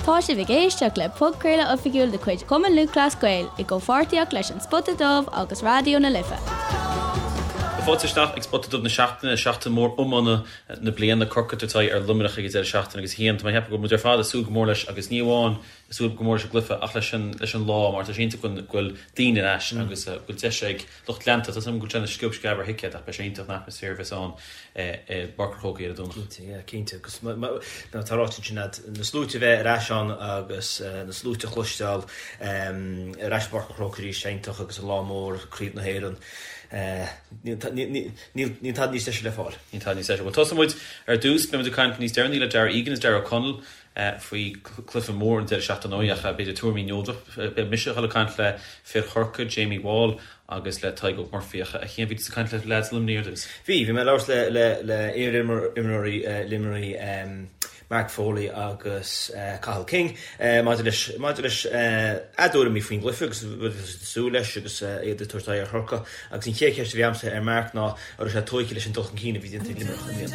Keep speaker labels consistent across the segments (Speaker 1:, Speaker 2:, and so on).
Speaker 1: Tá sibh ag éisteacht le podchraoladh oifigiúil de chuid Chumann Lúthchleas Gael i gcomhpháirtíocht leis An Spota Dubh agus Raidió na Life.
Speaker 2: Fáilte isteach ag Spota Dubh na seachtaine, seachtain mhór iomána na bliana, Corcaigh ag tabhairt aghaidh ar Luimneach ag an deireadh seachtaine agus a Chian, tá mé ag ceapadh go bhfuil muid ar fad ag súil go mór leis agus ní amháin ag súil go mór leis an gcluiche ach leis an leis an lá mar tá sé iontach go bhfuil daoine ar ais agus go bhfuil deis ag lucht leanta, tá a fhios agam go bhfuil sé ina sciob sceab ar thicéid ach beidh sé iontach an atmaisféar a bheas ann i bPáirc an Chrócaigh ar an Domhnach.
Speaker 3: Cinnte, yeah, cinnte. Agus mar atá ráite ansin agat, na sluaite a bheith ar ais ann agus na sluaite a chloisteáil ar ais i bPáirc an Chrócaigh arís, iontach agus an lá mór, Craobh na hÉireann, níl tada níos deise le fáil.
Speaker 2: Níl tada níos deise. Bhuel, tosóidh muid ar dtús, beidh muid ag caint níos deireanaí le Darragh Egan is Darragh O'Connell faoi chluiche mór an deireadh seachtaine ach b'fhéidir tuairimí neodrach. Beidh mise ag dul ag caint le fir Chorcaí, Jamie Wall agus le Tadhg Óg Murphy ach a Chian, bhí tusa ag caint le leaids Luimnigh ar dtús?
Speaker 3: Bhí, bhí mé ag labhairt le le iar-imreoirí Luimnigh, Mark Foley agus Cathal King maidir leis maidir leis a dtuairimí faoin gcluiche agus rud atá siad ag súil leis agus iad ag tabhairt aghaidh ar Chorcaigh agus an chéad cheist a bhí agamsa ar Mark ná an raibh sé tógtha leis an dul chun cinn a bhí déanta ag Luimneach i mbliana.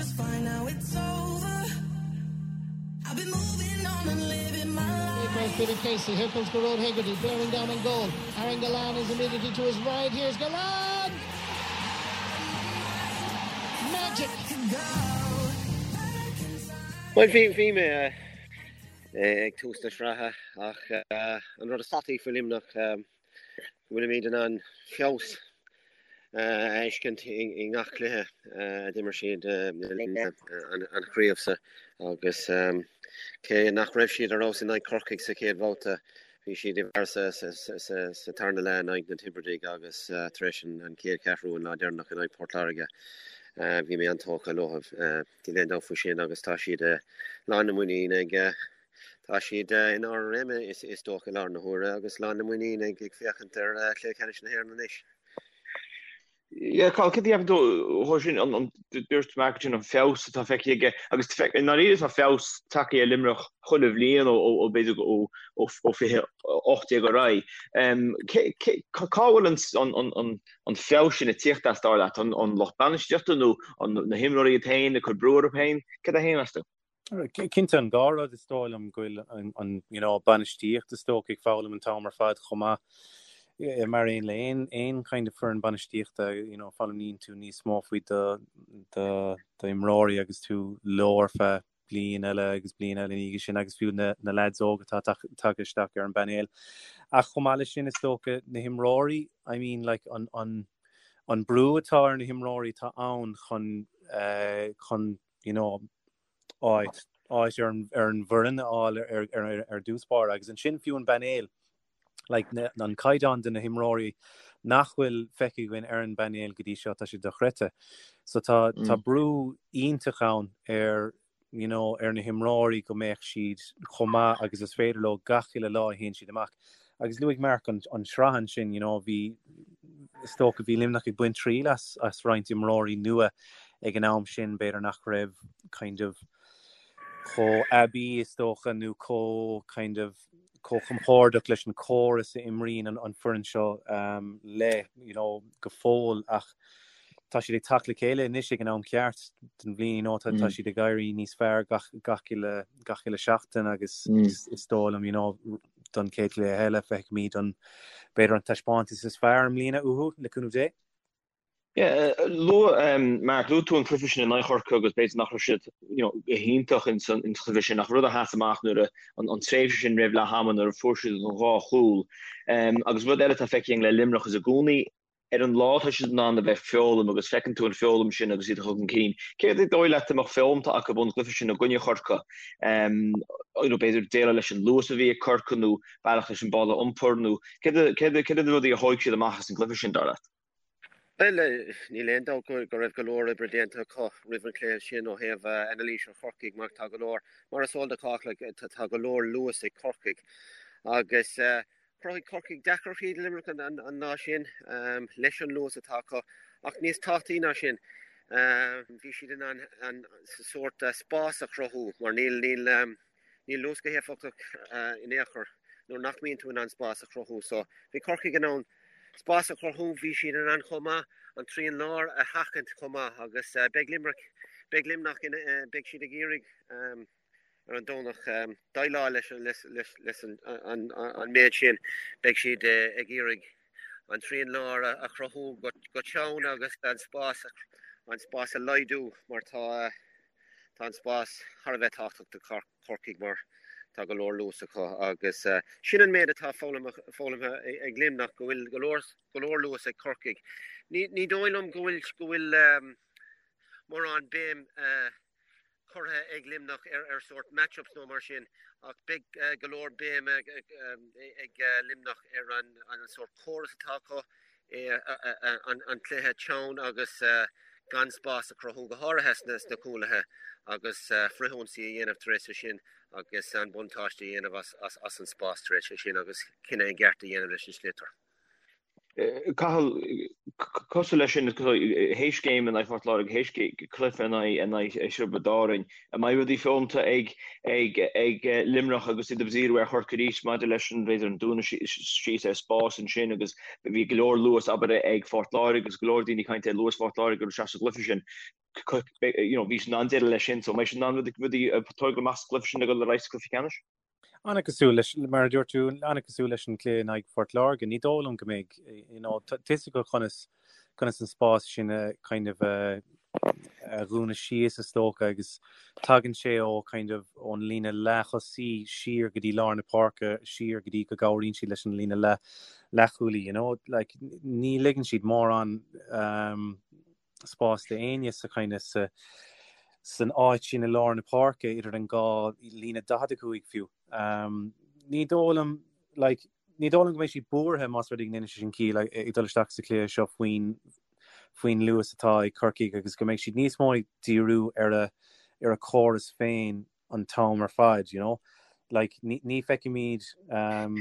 Speaker 4: Here comes Billy Casey, here comes Gearóid Hegarty, bearing down on goal. Aaron Gillane is immediately to his right, here's Gillane! Magic!
Speaker 5: Bhuel, bhí, bhí mé ag tús na sraithe ach an rud is tábhachtaí faoi Luimneach go bhfuilimid in ann feabhas a fheiscint i ngach cluiche a d'imir siad le linn an chraobh seo agus cé nach raibh siad ar fheabhas in aghaidh Corcaigh sa chéad bhabhta, bhí siad i bhfeabhas sa tarna leath in aghaidh na Tiobradaigh agus tar éis an chéad cheathrú an lá deireanach in aghaidh Port Láirge, bhí mé an-tógtha leo. Níl aon dabht faoi sin agus tá siad lán na muiníne ag Tá siad in ard a réime is dócha i láthair na huaire agus lán na muiníne ag féachaint ar chluiche ceannais na hÉireann anois.
Speaker 6: Yeah, Cathal, céard a cheapann tú dhó sin, an dúirt Mark ansin an feabhas atá feicthe aige agus i ndáiríre tá feabhas tagtha ar Luimneach chuile bhliain ó b'fhéidir ó 2018 ar aghaidh. Cá bhfuil an feabhas sin ag tíocht as dar leat? An lucht bainistíochta nó na himreoirí iad féin ag cur brú orthu féin? Céard é féin meas tú?
Speaker 7: Cinnte an dá rud is dóigh liom go bhfuil an you know bainistíocht is dócha ag foghlaim an t-am ar fad chomh maith mar aon le aon aon kind of foireann bainistíochta you know foghlaimíonn tú níos mó faoi do do do imreoirí agus tú leo ar feadh bliain eile agus bliain eile ina dhiaidh sin agus fiú na na lads óga atá tagtha isteach ar an bpainéal. Ach chomh maith leis sin is dócha na himreoirí I mean like an an an brú atá ar na himreoirí atá ann chun uh, chun you know, áit, áit ar an, ar an bhfoireann a fháil ar, ar, ar dtús báire agus ansin fiú an bpainéal, like, na, an caighdeán de na himreoirí nach bhfuil feicthe againn ar an bpainéal go dtí seo, tá sé dochreidte. So tá, mm. tá brú iontach ann ar, you know, ar na himreoirí go mbeadh siad chomh maith agus is féidir leo gach uile lá a théann siad amach. Agus luaigh Mark an, an sraith ansin, you know, bhí, is dócha bhí Luimneach ag baint triail as, as roinnt imreoirí nua ag an am sin, b'fhéidir nach raibh kind of chomh aibí is dócha nó chomh kind of chomh compordach leis an córas a imríonn an, an foireann seo um, le, you know, go fóill ach tá siad ag teacht le chéile anois ag an am ceart den bhliain, you know, tá, mm. tá siad ag éirí níos fearr gach, gach uile, gach uile seachtain agus mm. is, is dóigh liom, you know, don chéad chluiche eile feicfimid an b'fhéidir an taispeántas is fearr i mbliana uathu le cúnamh Dé.
Speaker 6: Yeah, luaigh Mark, luaigh tú an cluiche sin in aghaidh Chorcaí agus b'fhéidir nach raibh siad you know, go hiontach in san in chluiche sin ach rud a sheas amach nuair a an, an tréimhse sin roimh leath ama nuair a fuair siad an dhá chúl. Um, agus rud eile atá feicthe againn le Luimneach is i gcónaí ar an lá tá siad in ann a bheith ag foghlaim agus feiceann tú an foghlaim sin agus iad ag dul chun cinn. Céard is dóigh leat a mbeadh foghlamtha acu ón gcluiche sin i gcoinne Chorcaí? Um, you know, b'fhéidir déileáil leis an luas a bhí ag Corcaigh nó bealach leis an ball a iompar nó céard céard céard na rudaí a thóig siad amach as an gcluiche sin dar leat?
Speaker 5: Bhuel, níl aon dabht go raibh go leor oibre déanta acu roimh an chluiche sin ó thaobh anailís ar Chorcaigh mar tá go leor, mar is eol do chách, tá go leor luas ag Corcaigh agus chruthaigh Corcaigh deacrachtaí do Luimneach an lá sin leis an luas atá acu ach níos tábhachtaí ná sin bhí siad in ann an sórt spás a chruthú mar níl níl níl luas go héifeachtach in aon chor nuair nach mbíonn tú in ann spás a chruthú. So bhí Corcaigh in ann spás a chruthú, bhí siad in ann chomh maith an trian láir a sheachaint chomh maith agus beidh Limerick, beidh Luimneach, beidh siad ag iarraidh. ar an Domhnach déileáil leis an méid sin. Beidh siad ag iarraidh an trian láir a chruthú go teann agus an spás an spás a laghdú mar tá tá an spás thar a bheith tábhachtach do Chorcaigh mar tá go leor luas acu agus sin an méid atá foghlamtha ag Luimneach go bhfuil go leor go leor luas ag Corcaigh. Ní ní dóigh liom go bhfuil go bhfuil mórán béim curtha ag Luimneach ar sórt match-ups nó mar sin ach beidh go leor béim ag Luimneach ar an sórt córas atá acu, an cluiche teann agus gan spás a chruthú, go háirithe sna cúlaithe agus frithionsaí a dhéanamh tar éis sin agus an buntáiste a dhéanamh as an spás tar éis sin agus cinneadh i gceart a dhéanamh leis an sliotar.
Speaker 6: Cathal, cosúil leis sin, théis game in aghaidh Phort Láirge, théis cluiche in aghaidh Thiobraid Árann, an mbeidh rudaí foghlamtha ag Luimneach agus iad ag díriú ar Chorcaigh arís maidir leis an, b'fhéidir, an dúnadh síos ar spás ansin agus bhí go leor luas, abair, ag Phort Láirge agus go leor daoine ag caint ar luas Phort Láirge go raibh sé sa gcluiche sin. You know, bhí siad in ann déileáil leis sin, so an mbeidh siad in ann rudaí a tógáil amach sa gcluiche sin ag dul ar aghaidh sa gcluiche ceannais?
Speaker 7: An-chosúil leis, mar a dúirt tú, an-chosúil leis an gcluiche in aghaidh Phort Láirge. Ní dóigh liom go mbeidh, you know, tá fhios acu conas, conas an spás sin a kind of a, a dhúnadh síos is dócha agus tagann sé ó kind of ón líne leath-thosaí siar go dtí lár na páirce, siar go dtí go gcabhraíonn siad leis an líne leath, leathchúlaí, you know, like ní ligeann siad mórán um, spás d'éinne sa kind of sa san áit sin i lár na páirce idir an dhá líne 45 fiú. Um, ní dóigh liom like, ní dóigh liom go mbeidh siad buartha más rud é go ndéanann sé sin ciall ag dul isteach sa chluiche seo faoin faoin luas atá ag Corcaigh agus go mbeidh siad níos mó ag díriú ar a ar a córas féin an t-am ar fad, you know. Like, ní, ní feicfimid um,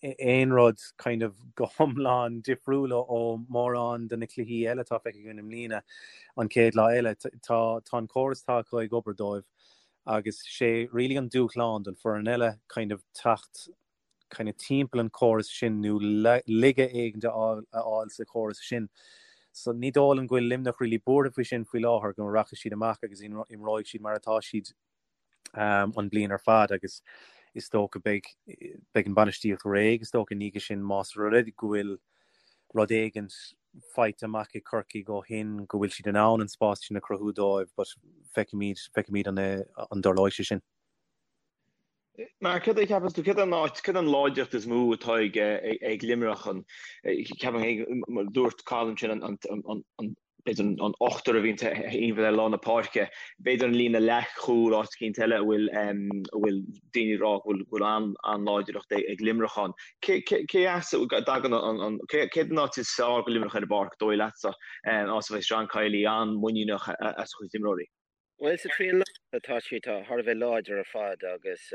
Speaker 7: aon rud kind of go hiomlán difriúil ó mórán de na cluichí eile atá feicthe againn i mbliana an chéad lá eile. Tá, tá an córas atá acu ag obair dóibh agus sé really an dúshlán don foireann eile kind of teacht kind of timpeall an córas sin nó laige éigin a fháil sa chóras sin. So ní dóigh liom go bhfuil Luimneach really buartha faoi sin faoi láthair, go rachaidh siad amach agus imreoidh siad mar atá siad um, an bliain ar fad agus is dócha beidh beidh an bainistíocht réidh is dócha ina dhiaidh sin más rud é go bhfuil rud éigin faighte amach ag Corcaigh ó shin go bhfuil siad in ann an spás sin a chruthú dóibh but feicfimid feicfimid an, an dtarlóidh sé sin.
Speaker 6: Mark, céard a cheapann tú, céard an áit, céard an láidreacht is mó atá ag ag Luimneach an, ceapaim féin, mar a dúirt Cathal ansin, an, an, an, an, b'fhéidir an, an ochtar a bhíonn timpeall ar lár na páirce, b'fhéidir an líne leathchúil, áit eicínt eile a bhfuil, a bhfuil daoine ag rá go bhfuil, go bhfuil an, an-láidreacht ag, ag Luimneach ann. Cé, cé, cé as a dtagann an, an, cé, céard an áit is fearr do Luimneach ar an bpáirc, dóigh leatsa, áit a bheidh John Kiely an-mhuiníneach as a chuid imreoirí?
Speaker 5: Bhuel, sa trian láir tá siad thar a bheith láidir ar fad agus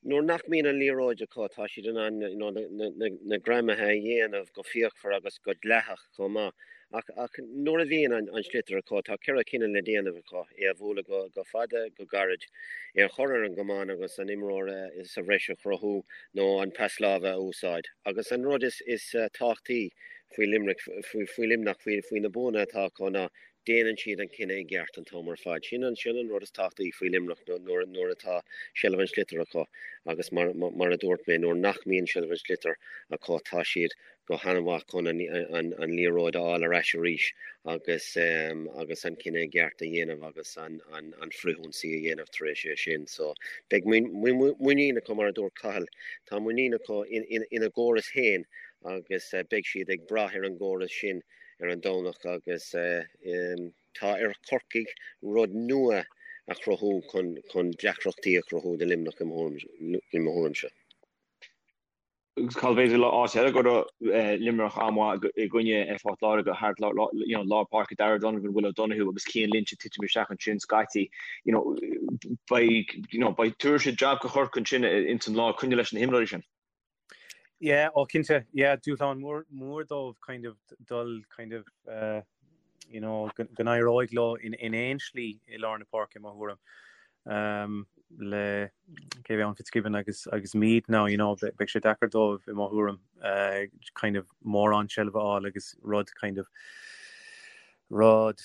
Speaker 5: nuair nach mbíonn an liathróid acu tá siad in ann you know na greamaithe a dhéanamh go fíochmhar agus go dleathach chomh maith. Ach ach nuair a bhíonn an sliotar acu tá 4 cinneadh le déanamh acu, é a bhualadh go go fada, go gairid, é a chur ar an gcamán agus an imreoir sa bhreis a chruthú nó an pas láimhe a úsáid. Agus an rud is is tábhachtaí faoi Limerick faoi faoi Luimneach faoi faoi na buanna atá acu ná Déanann siad an cinneadh i gceart an t-am ar fad. Sin an sin an rud is tábhachtaí faoi Luimneach nuair nuair atá seilbh an sliotair acu agus mar mar a dúirt mé nuair nach mbíonn seilbh an sliotair acu tá siad go han-mhaith chun an an an liathróid a fháil ar ais arís agus agus an cinneadh i gceart a dhéanamh agus an an an frithionsaí a dhéanamh tar éis é sin. So beidh muinín acu mar a dúirt Cathal, tá muinín acu in in ina gcóras féin agus beidh siad ag brath ar an gcóras sin ar an Domhnach agus tá ar Chorcaigh rud nua a chruthú chun deacrachtaí a chruthú do Luimneach i mo thuairimse.
Speaker 6: Agus Cathal b'fhéidir áit eile go raibh Luimneach an-mhaith i gcoinne Phort Láirge thart lár páirce Darragh Donovan, Will O'Donoghue agus Cian Lynch ag titim isteach ansin scaití. You know, beidh, you know, beidh tabharfaidh siad jab do Chorcaigh ansin ins an lár coinneáil leis na himreoirí sin.
Speaker 7: Yeah, ó cinnte, yeah, dúshlán mór mór dóibh kind of dul kind of uh, you know, go go n-éireoidh leo in in aon slí i lár na páirce i mo thuairim. Um, le cé bheith an Fitzgibbon agus agus Meade now, you know, beidh sé deacair dóibh i mo thuairim uh, kind of mórán seilbh a fháil agus rud kind of rud.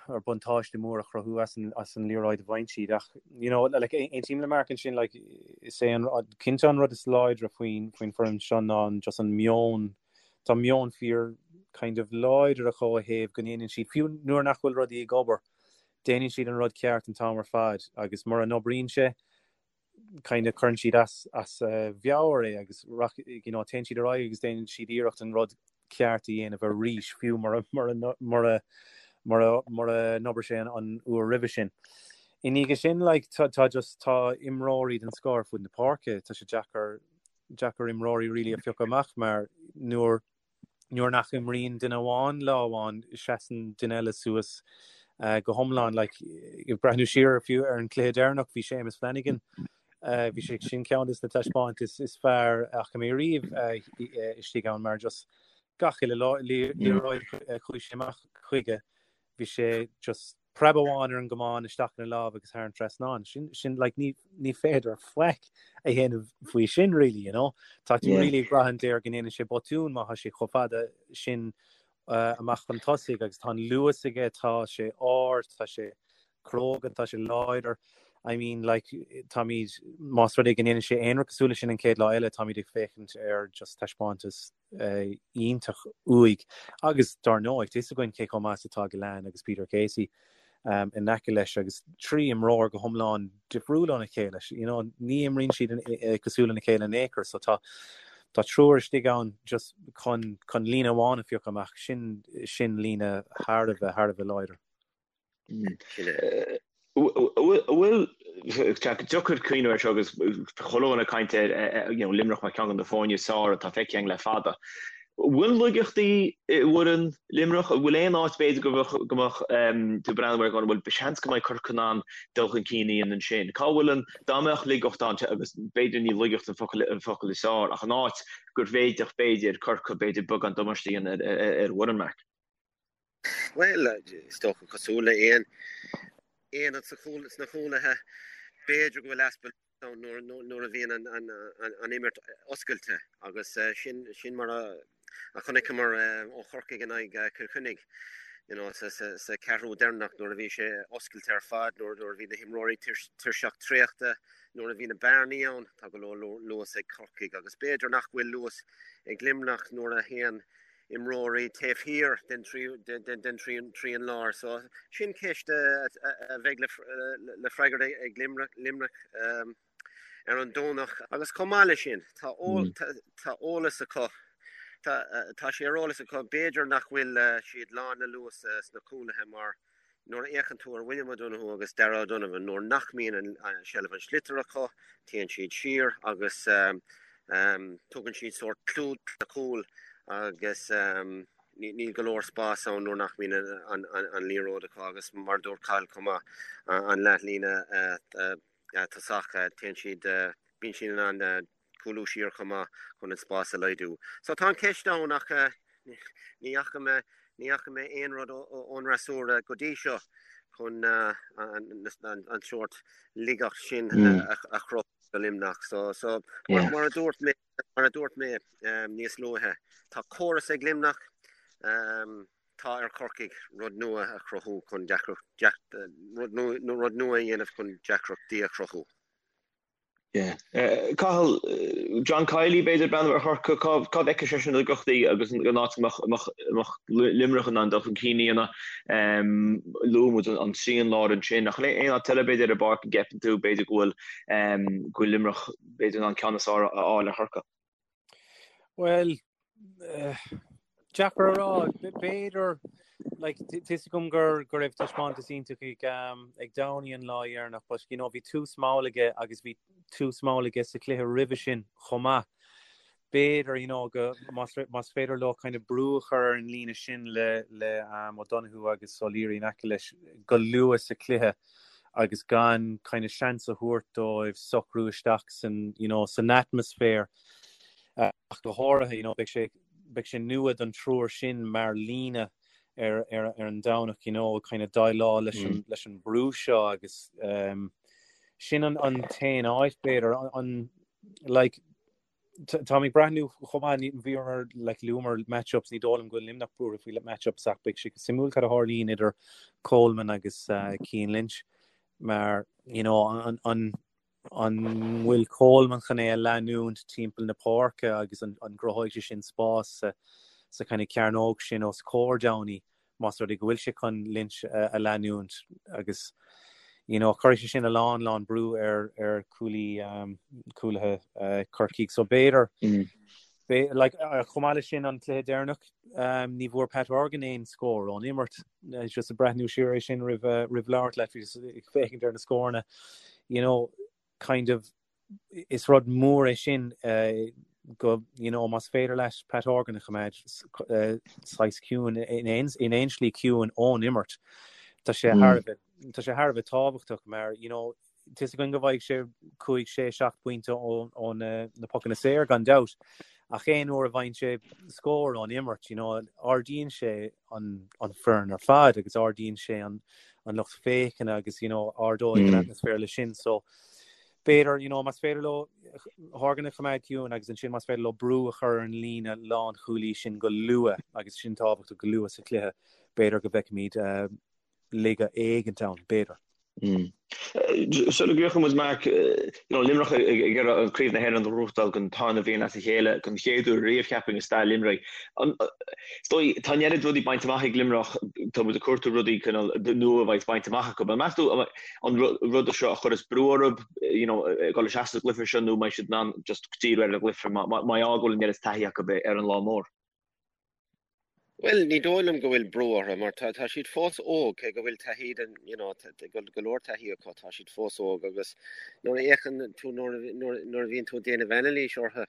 Speaker 7: or buntáiste mór a chruthú as an as an liathróid a bhain siad ach you know like aontaím le Mark ansin like is é an cinnte an rud is láidre faoin faoin foireann seo ná an just an meon tá meon fíor kind of láidir acu ó thaobh go ndéanann siad fiú nuair nach bhfuil rudaí ag obair déanann siad an rud ceart an t-am ar fad agus mura n-oibríonn sé kind of cuireann siad as as a mheabhair é agus you know téann siad ar aghaidh agus déanann siad iarracht an rud ceart a dhéanamh arís fiú mura mura mura mura mura n-obair sé an, an uair roimhe sin. I ndiaidh sin like, tá, tá just tá imreoirí den scoth ar fud na páirce, tá sé deacair deacair imreoirí really a phiocadh amach mar nuair nuair nach imríonn duine amháin lá amháin, seasann duine eile suas go hiomlán. Like, ag breathnú siar fiú ar an cluiche deireanach, bhí Séamus Flanagan, bhí sé sin ceann des na taispeántais is fearr a fhaca mé riamh istigh ann mar just gach uile liathróid a chuaigh sé amach chuige, bhí sé just preab amháin ar an gcamán isteach ina lámh agus thar an trasnán. Sin, sin, like, ní, ní féidir faic a dhéanamh faoi sin, really, you know. Tá tú really ag brath air go ndéanann sé botún má tá sé chomh fada sin uh, amach chun tosaigh agus tá an luas aige, tá sé ard, tá sé cróga, tá sé láidir. I mean, like, táimid, más rud é go ndéanann sé aon rud cosúil leis sin an chéad lá eile, táimid ag féachaint ar just taispeántas iontach uaidh agus dár ndóigh, tá fhios againn cé chomh maith is atá Gillane agus Peter Casey in aice leis agus 3 imreoir go hiomlán difriúil óna chéile. You know, ní imríonn siad cosúil lena chéile in aon chor so tá tá triúr istigh ann just chun chun líne amháin a phiocadh amach, sin sin líne thar a bheith thar a bheith láidir.
Speaker 6: Bhfuil deacair cuimhneamh air seo agus chuile dhuine ag caint ar Luimneach mar cheann de na foirne is fearr atá feicthe againn le fada. Bhfuil laigeachtaí i bhfoireann Luimneach? An bhfuil aon áit b'fhéidir go mbeadh tú ag breathnú air go bhfuil seans go mbeidh Corcaigh in ann dul chun cinn a dhéanamh ansin? Cá bhfuil an, dá mbeadh laigeacht ann, agus b'fhéidir ní laigeacht an focal is fearr, ach an áit gur bhféadfadh b'fhéidir Corcaigh b'fhéidir beagán damáiste a dhéanamh ar an bhfoireann, Mark?
Speaker 5: Bhuel, is dócha cosúil le aon aonad sa chúl, sna cúlaithe, b'fhéidir go bhfuil easpa ann nuair, nuair a bhíonn an, an, an imirt oscailte agus sin, sin mar a, a chonaiceamar ó Chorcaigh in aghaidh Chill Chainnigh, you know, sa, sa, sa ceathrú deireanach nuair a bhí sé oscailte ar fad, nuair, nuair a bhí na himreoirí tuirseach traochta, nuair a bhí na bearnaí ann, tá go leor luas ag Corcaigh agus b'fhéidir nach bhfuil luas ag Luimneach nuair a théann imreoirí taobh thiar den trian láir. So sin ceist a bheidh le freagairt ag Luimneach ar an Domhnach. Agus chomh maith leis sin, tá eolas acu, tá sé ar eolas acu, b'fhéidir nach bhfuil siad lán le luas sna cúlaithe mar Nuair a fhéachann tú ar William O'Donoghue agus Darragh O'Donovan, nuair nach mbíonn seilbh an tsliotair acu, téann siad siar agus tugann siad sórt clúdach do na cúil agus níl go leor spás ann nuair nach mbíonn an liathróid acu agus mar a dúirt Cathal chomh maith, an leathlíne tosach, téann siad, bíonn siad in ann cúlú siar chomh maith chun an spás a laghdú. So tá an ceist ann ach ní fhaca mé, ní fhaca mé aon rud ón fhreasúra go dtí seo chun an sórt laigeacht sin a chruthú do Luimneach. So, so mar a dúirt mé, mar a dúirt mé níos luaithe, tá córas ag Luimneach, tá ar Chorcaigh rud nua a chruthú chun deacracht, rud nua a dhéanamh chun deacrachtaí a chruthú.
Speaker 6: Cathal, John Kiely b'fhéidir breathnú ar Chorcaigh, cá bhfeiceann seisean na laigeachtaí agus an áit a mbeadh Luimneach in ann dul chun cinn a dhéanamh. Luaigh muid an trian láir ansin ach aon áit eile b'fhéidir ar an bpáirc a gceapann tú b'fhéidir go bhfuil go bhfuil Luimneach b'fhéidir in ann ceann is fearr a fháil ar Chorcaigh?
Speaker 7: Bhuel, deacair a rá. B'fhéidir, like, tá fhios agam gur go raibh taispeántas iontach ag um, ag Downey an lá dheireanach, but you know, bhí tús mall aige agus bhí tús mall aige sa chluiche roimhe sin chomh maith. B'fhéidir, you know, go más, más féidir leo kind of brú a chur ar an líne sin le, le um, O'Donoghue agus O'Leary in aice leis go luath sa chluiche agus gan kind of seans a thabhairt dóibh socrú isteach san, you know, san atmaisféar ach go háirithe, you know, beidh sé, beidh sé nua don triúr sin mar líne ar, ar, ar an Domhnach, you know, kind of déileáil leis an, leis an brú seo agus um, sin an, an t-aon áit b'fhéidir, an, an, like, Táim ag breathnú chomh maith, bhíomar like luamar match-ups, ní dóigh liom go bhfuil Luimneach buartha faoi match-ups ach beidh sé suimiúil cad a tharlaíonn idir Coleman agus Cian Lynch mar you know an an an bhfuil Coleman chun é a leanúint timpeall na páirce agus an an gcruthóidh sé sin spás sa sa kind of cearnóg sin os comhair Downey más rud é go bhfuil sé chun Lynch a leanúint agus you know cuirfidh sé sin a lán lán brú ar ar cúlaí um, cúlaithe uh, Corcaigh so b'fhéidir mm. Be, like, uh, chomh maith leis sin an cluiche deireanach um, ní bhfuair Pat Horgan aon scór ón imirt uh, just ag breathnú siar é sin roimh uh, roimh labhairt leat ag féachaint ar na scóranna you know kind of is rud mór é sin go, you know, más féidir leat Pat Horgan a choimeád saghas ciúin, in aon, in aon slí ciúin ón imirt, tá sé thar a bheith, tá sé thar a bheith tábhachtach mar, you know, tá a fhios againn go bhfaighidh sé 5, 6, 7 bpointe ó, ó na, na pocanna saor gan dabht, ach aon uair a bhfaigheann sé scór ón imirt, you know, ardaíonn sé an, an foireann ar fad agus ardaíonn sé an, an lucht féachana agus, you know, ardóidh an atmaisféar leis sin, so, B'fhéidir, you know, más féidir leo Horgan a choimeád ciúin agus ansin más féidir leo brú a chur ar an líne lánchúlaí sin go luath, agus sin tábhachtach go luath sa chluiche, b'fhéidir go bhfeicfimid laige éigint ann, b'fhéidir.
Speaker 6: Sula gcríochnóidh muid, Mark, you know, Luimneach ag iarraidh Craobh na hÉireann a ghnóthachtáil don tarna bhliain as a chéile, don chéad uair riamh, cheapfainn, i stair Luimnigh. Is dóigh, tá an oiread rudaí bainte amach ag Luimneach, tá muid ag cuartú rudaí cineál nua a bheidh bainte amach acu. Meas tú, an rud seo a chuirfeas brú orthu, you know, ag dul isteach sa gcluiche seo nó an mbeidh siad in ann just díriú ar an gcluiche mar gheall go bhfuil an oiread taithí acu ar an lá mór?
Speaker 5: Bhuel, ní dóigh liom go bhfuil brú orthu mar tá tá siad fós óg, cé go bhfuil taithí den, you know, go go leor taithí acu, tá siad fós óg agus nuair a fhéachann tú nuair nuair nuair a bhíonn tú ag déanamh anailís orthu,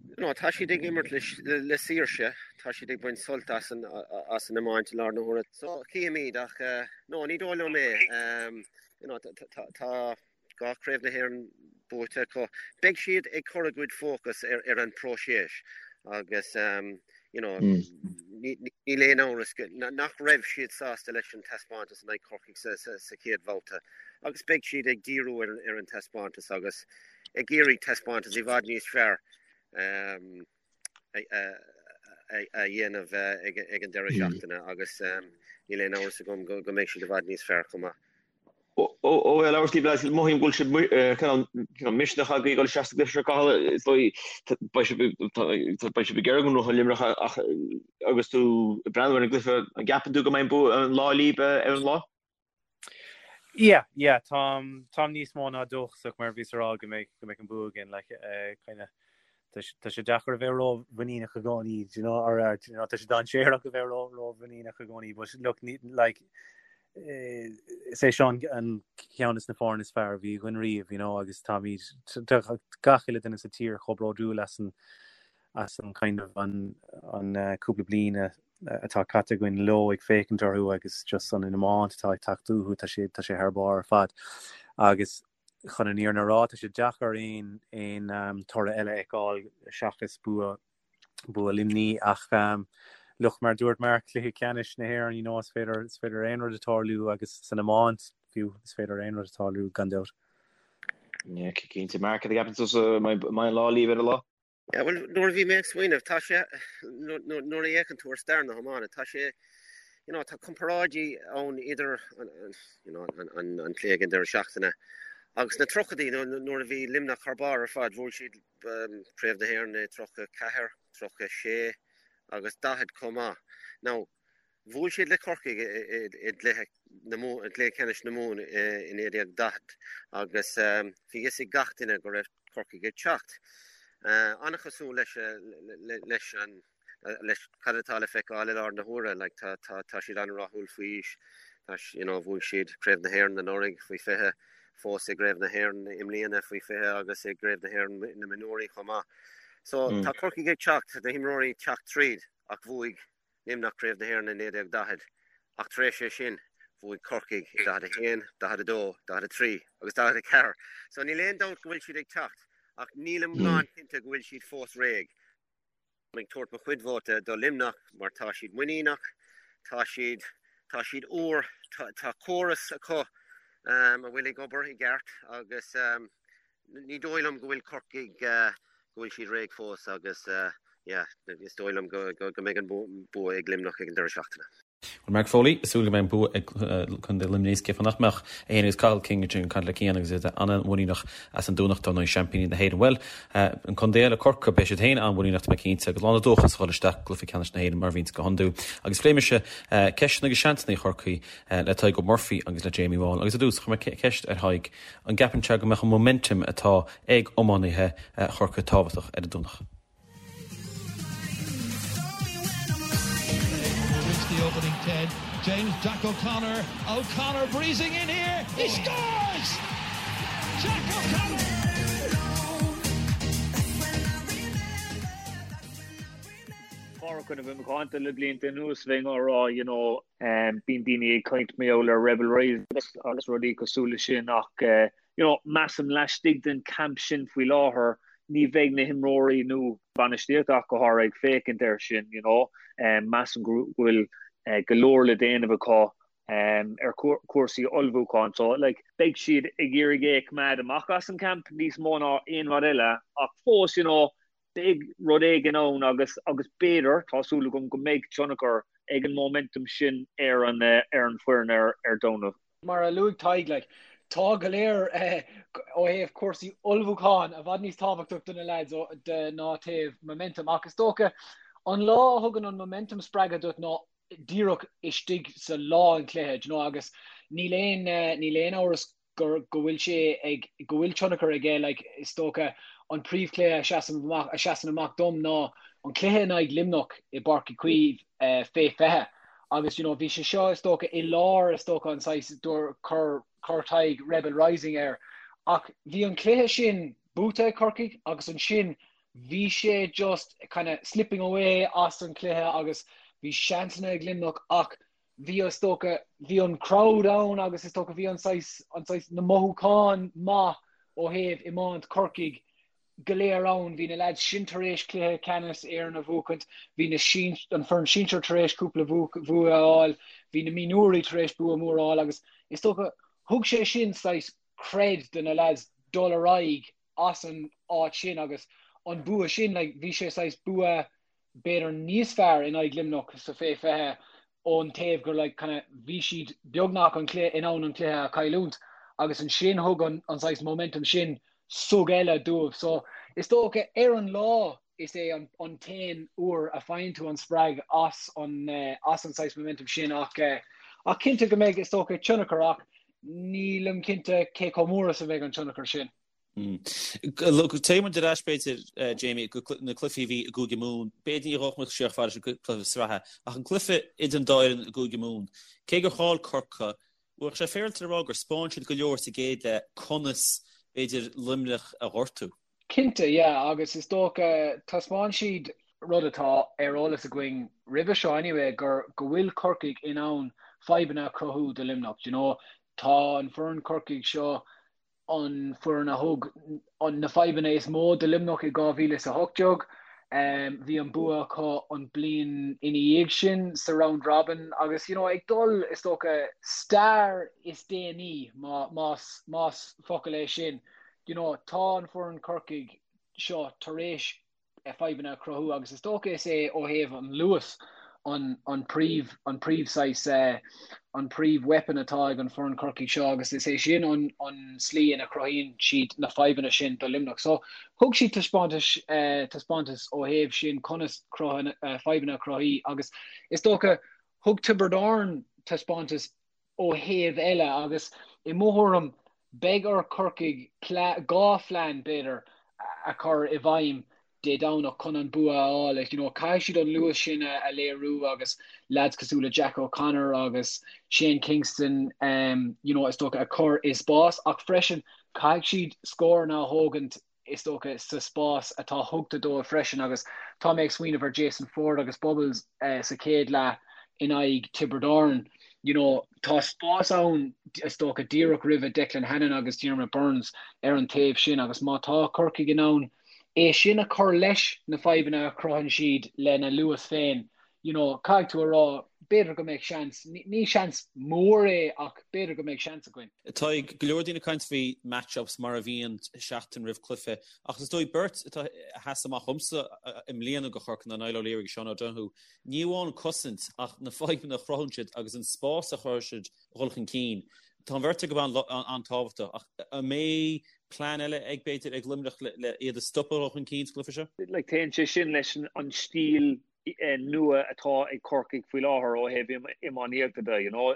Speaker 5: you know, tá siad ag imirt le le saoirse, tá siad ag baint sult as an as an iomáint i láthair na huaire. So, chífimid ach no, ní dóigh liom é. You know, tá dhá chraobh na hÉireann buaite acu. Beidh siad ag cur a gcuid fócas ar ar an próiseas agus you know, níl aon amhras nach raibh siad sásta leis an taispeántas in aghaidh Corcaigh sa sa sa chéad bhabhta agus beidh siad ag díriú ar ar an taispeántas agus ag iarraidh taispeántas i bhfad níos fearr. A dhéanamh ag an deireadh seachtaine agus níl aon amhras agam go mbeidh siad i bhfad níos fearr chomh maith.
Speaker 6: Ó ag labhairt libh lads, mothaím go bhfuil sibh cineál misneach agaibh ag dul isteach sa gcluiche seo Cathal, is dóigh beidh sibh beidh sibh ag iarraidh go ngnóthóidh Luimneach ach agus tú ag breathnú ar an gcluiche, an gceapann tú go mbeidh an bua an lá libh ar an lá?
Speaker 7: Yeah, yeah, táim, táim níos mó ná dóchasach mar bhíos a rá go mbeidh, go mbeidh an bua againn, like, eh, kind of, tá sé, tá sé deacair a bheith ró-mhuiníneach i gcónaí, do you know, or, uh, do you know, tá sé dainséarach a bheith ró, ró-mhuiníneach i gcónaí, but look, ní, like, eh, is é seo an, an ceann is na foirne is fearr a bhí againn riamh, you know, agus táimid, tá gach uile duine sa tír chomh bródúil as an, as an kind of, an, an, eh, cúpla bliain a, atá caite againn leo ag féachaint orthu agus just an iomáint atá ag teacht uathu, tá sé, tá sé thar barr ar fad. Agus chun an fhírinne a rá, tá sé deacair aon, aon um, toradh eile a fheiceáil seachas bua, bua Luimní ach um, look, mar dúirt Mark, cluiche ceannais na hÉireann, you know, is féidir, is féidir aon rud a tarlú agus san iomáint fiú, is féidir aon rud a tarlú gan dabht.
Speaker 6: Yeah, cinnte. Mark, cad a cheapann tusa, an mbeidh an lá libh ar an lá?
Speaker 5: Yeah, bhuel, nuair a bhí mé ag smaoineamh, tá sé, nuair a fhéachann tú ar stair na hiomána, tá sé, you know, tá comparáidí ann idir an, you know, an, an, an cluiche ag an deireadh seachtaine agus na tríochaidí nuair a bhí Luimneach thar barr ar fad, bhuaigh siad um, Craobh na hÉireann i 34, 36 agus 40 chomh maith. Now, Bhuail siad le Corcaigh i gcluiche ceannais na Mumhan i 1940 agus bhí fhios ag gach duine go raibh Corcaigh ag teacht. An-chosúil leis leis an leis cad atá le feiceáil i láthair na huaire. Like, tá, tá, tá siad an-rathúil faoi aois. Tá, you know, bhuaigh siad Craobh na hÉireann anuraidh faoi 20, fós i gCraobh na hÉireann i mbliana faoi 20 agus i gCraobh na hÉireann na mionúirí chomh maith. So tá Corcaigh ag teacht, na himreoirí ag teacht tríd ach bhuaigh Luimneach Craobh na hÉireann i 1940, ach tar éis é sin, bhuaigh Corcaigh i 41, 42, 43 agus 44. So níl aon dabht go bhfuil siad ag teacht, ach nílim lánchinnte go bhfuil siad fós réidh. Táim ag tabhairt mo chuid vóta do Luimneach mar tá siad muiníneach, tá siad, tá siad úr, tá, tá córas acu um, a bhfuil ag obair i gceart agus um, ní dóigh liom go bhfuil Corcaigh uh, go bhfuil siad réidh fós agus yeah, is dóigh liom go mbeidh an bua ag Luimneach ag an deireadh seachtaine.
Speaker 2: Bhuel, Mark Foley, ag súil go mbeidh an bua ag Contae Luimnigh, is cén fáth nach mbeadh, é féin agus Cathal King ansin ag caint le Cian agus iad an-mhuiníneach as an Domhnach, dar ndóigh, seaimpíní na hÉireann. Bhuel, an contae eile, Corcaigh, beidh siad féin an-mhuiníneach, tá mé cinnte, agus lán de dóchas a dhul isteach i gcluiche ceannais na hÉireann mar a bhíonns go hiondúil. Agus phléigh mise ceisteanna agus seansanna Chorcaí le Tadhg O'Murphy agus le Jamie Wall. Agus ar dtús, chuir mé ceist ar Thadhg, an gceapann sé go mbeadh an momentum atá ag iománaithe Chorcaí tábhachtach ar an Domhnach?
Speaker 4: James Jack O'Connor, O'Connor breezing in here, he scores! Jack O'Connor!
Speaker 8: Pádraic, nuair a bhím ag caint le blianta anuas bheinn á rá you know bíonn daoine ag caint mar gheall ar Rebel Rising agus rudaí cosúil le sin ach you know, measaim laistigh den camp sin faoi láthair, ní bheidh na himreoirí nó bainistíocht ach go háirithe ag féachaint air sin, you know. Measaim go bhfuil go leor le déanamh acu ar chúrsaí ullmhúcháin. So, like, beidh siad ag iarraidh é a choimeád amach as an camp níos mó ná aon rud eile ach fós, you know, beidh rud éigin ann agus agus b'fhéidir, tá súil agam go mbeidh tionchar ag an momentum sin ar an ar an bhfoireann ar ar Domhnach.
Speaker 9: Mar a luaigh Tadhg, like, tá go leor ó thaobh cúrsaí ullmhúcháin i bhfad níos tábhachtach do na lads de ná taobh momentum ach is dócha an lá a thugann an momentum spreagadh duit ná díreach istigh sa lá an chluiche, do you know, agus níl aon níl aon amhras gur go bhfuil sé ag go bhfuil tionchar aige like is dócha an príomhchluiche a seasann amach a seasann amach dom ná an cluiche in aghaidh Luimneach i bPáirc Uí Chaoimh eh, fé 20 agus you know bhí sé seo is dócha i lár is dócha an saghas dúr chur chur Tadhg Rebel Rising air ach bhí an cluiche sin buaite ag Corcaigh agus ansin bhí sé just kind of slipping away as an cluiche agus bhí seansanna ag Luimneach ach bhí is dócha, bhí an crowd ann agus is dócha bhí an saghas, an saghas, na mothúcháin maith ó thaobh iomáint Chorcaigh go léir ann. Bhí na lads sin tar éis cluiche ceannais Éireann a bhuachaint, bhí na sin, an foireann sinsir tar éis cúpla bua a fháil, bhí na mionúirí tar éis bua mór a fháil agus is dócha thug sé sin saghas cred do na lads dul ar aghaidh as an áit sin agus an bua sin, like, bhí sé saghas bua b'fhéidir níos fearr in aghaidh Luimneach sa fé 20 ón taobh gur like kind of bhí siad beagnach an cluiche in ann an cluiche a chailliúint agus ansin thug an an saghas momentum sin sug eile dóibh. So is dócha ar an lá is é an an t-aon uair a faigheann tú an spreag as an as an saghas momentum sin ach ach cinnte go mbeidh is dócha tionchar ach nílim cinnte cé chomh mór is a bheidh an tionchar sin.
Speaker 2: Téigh muid ar ais b'fhéidir, Jamie, go na cluichí a bhí i gCúige Mumhan. B'fhéidir ní ghabhfadh muid siar chomh fada leis an gcluiche sraithe, ach an cluiche idir an dá fhoireann i gCúige Mumhan, cé gur chaill Corcaigh, bheadh sé féaráilte le rá gur 'spáin siad go leor sa gcéad leath conas, b'fhéidir, Luimneach a ghortú.
Speaker 9: Cinnte, yeah, agus is dócha, taispeáin siad rud atá ar eolas againn roimhe seo anyway, gur go bhfuil Corcaigh in ann fadhbanna a chruthú do Luimneach, do you know. Tá an foireann Corcaigh seo an foireann a thug na fadhbanna is mó do Luimneach i 2018. Bhí an bua acu an bliain ina dhiaidh sin sa round robin agus you know ag dul is dócha stair is déanaí más más focal é sin you know tá an foireann Corcaigh seo tar éis fadhbanna a chruthú agus is dócha is é ó thaobh an luas an an príomh an príomh saghas an príomh weapon atá ag an foireann Corcaigh seo agus is é sin an an slí ina chruthaíonn siad na fadhbanna sin do Luimneach. So thug siad taispeántas taispeántas ó thaobh sin conas fadhbanna a chruthú agus is dócha thug Tiobraid Árann taispeántas ó thaobh eile agus i mo thuairim beidh ar Chorcaigh 2 phlean b'fhéidir a chur i bhfeidhm Dé Domhnach chun an bua a fháil. You know, caithfidh siad an luas sin a léiriú agus lads cosúil le Jack O'Connor agus Shane Kingston um, you know, is dócha a chur i spás ach freisin caithfidh siad scóranna a thógaint is dócha, sa spás atá tugtha dóibh freisin agus tá mé ag smaoineamh ar Jason Forde agus Bubbles sa chéad leath in aghaidh Tiobraid Árann. You know, tá spás ann, is dócha, díreach roimhe Declan Hannon agus Diarmaid Byrnes ar an taobh sin agus má tá Corcaigh in ann é sin a chur leis na fadhbanna a chruthaíonn siad lena luas féin, you know, caithfidh tú a rá. b'fhéidir go mbeadh seans, ní seans mór é ach b'fhéidir go mbeadh seans againn.
Speaker 2: Tá go leor daoine ag caint faoi match-ups mar a bhíonn seachtain roimh cluiche ach is dóigh beirt atá a sheas amach dhomsa i mbliana do Chorcaigh ná Niall O'Leary agus Sean O'Donoghue. Ní amháin cosaint ach na fadhbanna a chruthaíonn siad agus an spás a chruthaíonn siad a dhul chun cinn. Tá an bheirt acu an-tábhachtach ach an mbeidh plean eile ag b'fhéidir ag Luimneach le iad a stopadh a dhul chun cinn sa gcluiche seo?
Speaker 8: Like téann sé sin leis an stíl nua atá ag Corcaigh faoi láthair ó thaobh iománaíochta de, you know.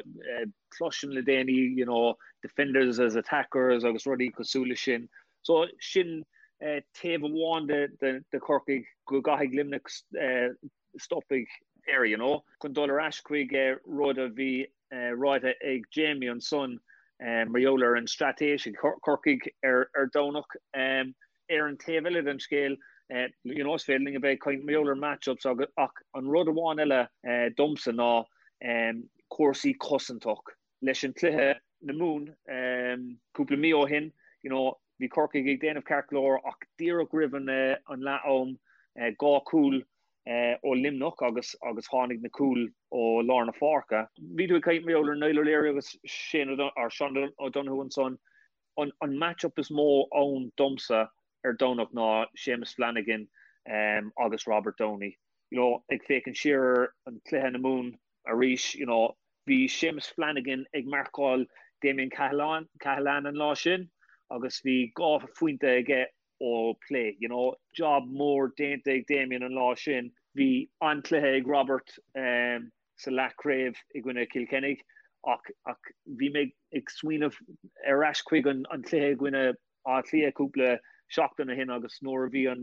Speaker 8: Cloisim le déanaí, you know, defenders as attackers agus rudaí cosúil leis sin. So sin taobh amháin de de Chorcaigh go gcaithfidh Luimneach stopadh air, you know. Chun dul ar ais chuig rud a bhí ráite ag Jamie ansan mar gheall ar an straitéis ag Corcaigh ar Domhnach. Ar an taobh eile den scéal, you know, is féidir linn a bheith ag caint mar gheall ar match-ups ach an rud amháin eile domsa ná cúrsaí cosantach. Leis an cluiche na Mumhan cúpla mí ó shin, you know, bhí Corcaigh ag déanamh ceart go leor ach díreach roimh an leath-am, 2 chúl ó Luimneach agus agus tháinig na cúil ó lár na páirce. Bhí tú ag caint mar gheall ar Niall O'Leary agus Shane or Sean O'Donoghue ansan. An an match-up is mó ann domsa ar Domhnach ná Séamus Flanagan agus Robert Downey. You know, ag féachaint siar ar an cluiche na Mumhan arís, you know, bhí Séamus Flanagan ag marcáil Damien Cahalane an lá sin agus bhí 2 phointe aige ó plé. You know, job mór déanta ag Damien an lá sin. Bhí an-chluiche ag Robert sa leathchraobh i gcoinne Chill Chainnigh ach ach bhí mé ag smaoineamh ar ais chuig an cluiche i gcoinne Átha Cliath cúpla seachtain ó shin agus nuair a bhí an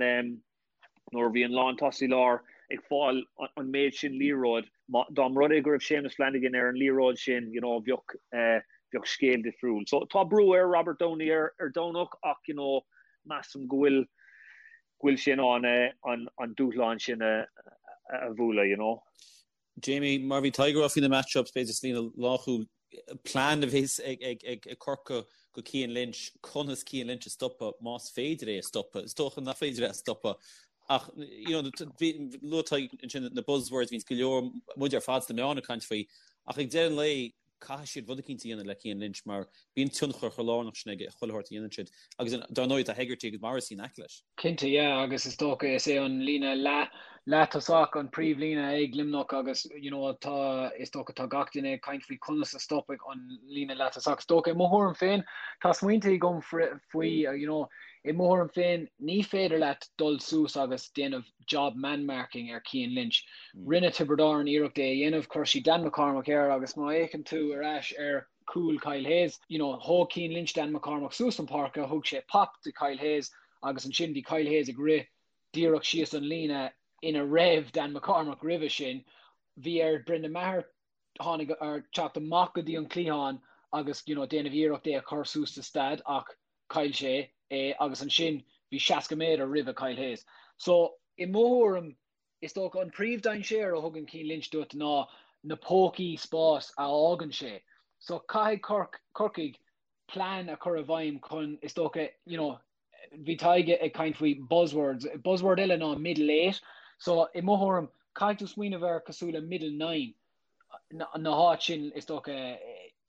Speaker 8: nuair a bhí an lántosaí láir ag fáil an méid sin liathróid, dá mba rud é go raibh Séamus Flanagan ar an liathróid sin, you know, bheadh bheadh scéal difriúil. So tá brú ar Robert Downey ar ar Domhnach ach, you know, measaim go bhfuil go bhfuil sé in ann an an dúshlán sin a a bhualadh, you know.
Speaker 2: Jamie, mar a bhí Tadhg ag rá faoi na match-ups, b'fhéidir sa líne lánchúil, plean a bheas ag Corcaigh do Cian Lynch, conas Cian Lynch a stopadh, más féidir é a stopadh. Is dócha nach féidir é a stopadh ach you know luaigh Tadhg ansin na buzzwords, bhíonns go leor, muid ar fad sna meáin ag caint faoi, ach ag deireadh an lae, caithfidh siad rud eicínt a dhéanamh le Cian Lynch mar bíonn tionchar chomh lárnach sin aige i chuile shórt a dhéanann siad agus dar ndóigh tá Hegarty agus Morrissey in aice leis.
Speaker 9: Cinnte, yeah, agus is dócha is é an líne leath, leath-tosach an príomhlíne ag Luimneach agus you know tá, is dócha tá gach duine ag caint faoi conas a stopfaidh an líne leath-tosach. Is dócha i mo thuairim féin, tá smaointe agam faoi you know, i mo thuairim féin ní féidir leat dul suas agus déanamh job man marking ar Cian Lynch. Rinne Tiobraid Árann iarracht é a dhéanamh, chuir siad Dan McCormack air agus má fhéachann tú ar ais ar chúl Kyle Hayes, you know, thóg Cian Lynch Dan McCormack suas an páirce, thug sé pop do Kyle Hayes agus ansin bhí Kyle Hayes ag rith díreach síos an líne ina raibh Dan McCormack roimhe sin. Bhí ar Brendan Maher tháinig ar teacht amach go dtí an cliathán agus you know, déanamh iarracht é a chur suas sa stad ach chaill sé é agus ansin bhí 60 méadar roimhe Kyle Hayes. So, i mo thuairim, is dócha an príomh-dainséar a thugann Cian Lynch duit ná na pócaí spáis a fhágann sé. So, caithfidh Corc, Corcaigh plean a chur i bhfeidhm chun, is dócha, you know, bhí Tadhg ag caint faoi buzzwords, buzzword eile ná middle eight. So, i mo thuairim, caithfidh tú smaoineamh air cosúil le middle nine. na háit sin, is dócha,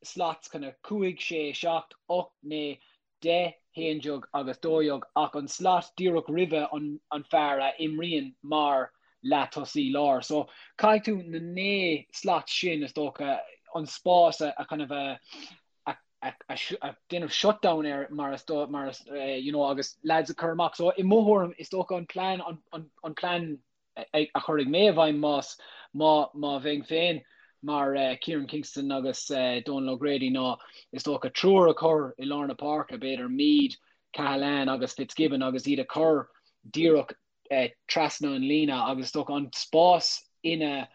Speaker 9: slots kind of 5, 6, 7, 8, 9, 10, 11 agus 12 ach an slot díreach roimhe an fear a imríonn mar leath-tosaí láir. So caithfidh tú na 9 slot sin, is dócha, an spás a kind of a a déanamh shutdown air mar is mar is you know agus lads a chur amach. So i mo thuairim is dócha an plean an plean a chuirfidh mé i bhfeidhm más, má, má bheinn féin mar Kieran Kingston agus Donal O'Grady ná is dócha triúr a chur i lár na páirce, b'fhéidir Meade, Cahalane agus Fitzgibbon agus iad a chur díreach trasna an líne agus is dócha an spás ina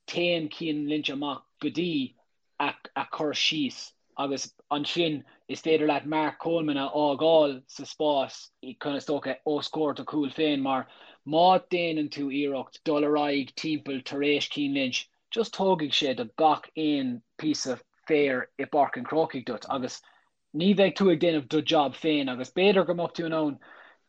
Speaker 9: téann Cian Lynch amach go dtí a chur síos agus ansin is féidir leat Mark Coleman a fhágáil sa spás chun is dócha os comhair do chúil féin mar má déanann tú iarracht dul ar aghaidh timpeall tar éis Cian Lynch just tógfaidh sé do gach aon píosa féir i bPáirc an Chrócaigh duit agus ní bheidh tú ag déanamh do job féin agus b'fhéidir go mbeadh tú in ann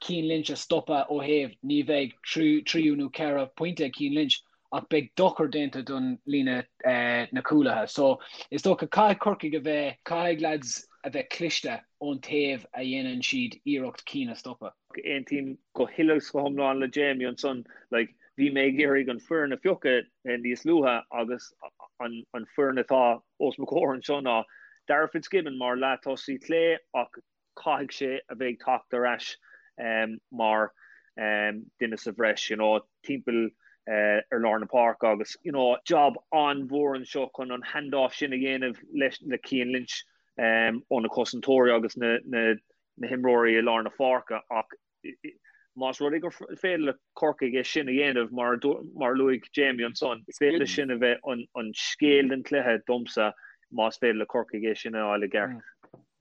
Speaker 9: Cian Lynch a stopadh ó thaobh ní bheidh tríú nó 4 pointe ag Cian Lynch. ach beidh dochar déanta don líne na cúlaithe. So is dócha caithfidh Corcaigh a bheith, caithfidh lads a bheith cliste ón taobh a dhéanann siad iarracht Keane a stopadh.
Speaker 8: Aontaím go huile is go hiomlán le Jamie ansan. Like, bhí mé ag iarraidh an foireann a phiocadh níos luaithe agus an an foireann atá os mo chomhair anseo ná Darragh Fitzgibbon mar leath-tosaí clé ach caithfidh sé a bheith ag teacht ar ais mar duine sa bhreis, you know, timpeall ar lár na páirce agus, you know, job an-mhór anseo chun an hand-off sin a dhéanamh leis le Cian Lynch ó na cosantóirí agus na na na himreoirí i lár na páirce ach más rud é gur féidir le Corcaigh é sin a dhéanamh mar mar a luaigh Jamie ansan, is féidir leis sin a bheith an an scéal den chluiche domsa más féidir le Corcaigh é sin a fháil i gceart.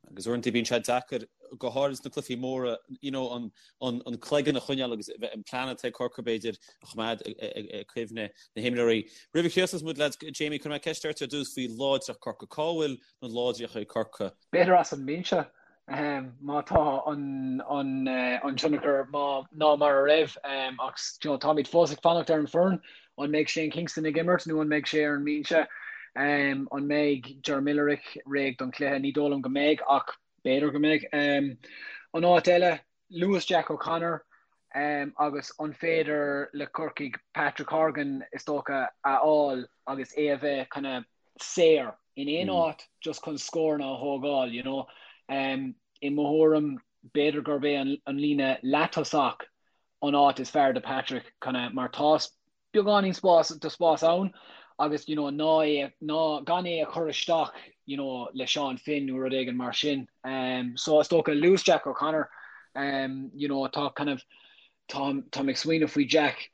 Speaker 2: Agus uaireanta bíonn sé deacair, go háirid sna cluichí móra, you know, an, an, an cloigeann a choinneáil agus an plean atá ag Corcaigh b'fhéidir a choimeád i gcuimhne na himreoirí. Roimh a chríochnós muid lads, Jamie, cuirfidh mé ceist ort ar dtús faoi láidreacht Corcaigh. Cá bhfuil na láidreachtaí ag Corcaigh?
Speaker 9: B'fhéidir as an mbinse, má tá an, an, an tionchar má, ná mar a raibh ach you know, táimid fós ag fanacht ar an foireann. An mbeidh Shane Kingston ag imirt nó an mbeidh sé ar an mbinse? An mbeidh Ger Millerick réidh don chluiche? Ní dóigh liom go mbeidh ach b'fhéidir go mbeidh. An áit eile, luas Jack O'Connor agus an féidir le Corcaigh Patrick Horgan is dócha a fháil agus é a bheith kind of saor in aon áit just chun scóranna a thógáil, you know. I mo thuairim, b'fhéidir gurb é an líne leath-tosach an áit is fearr do Patrick kind of mar tá beagáinín spás de spás ann agus you know ná é ná gan é a chur isteach you know le Seán Finn nó rud éigin mar sin. Um, so is dócha luas Jack O'Connor um, you know tá kind of tá tá ag smaoineamh faoi Jack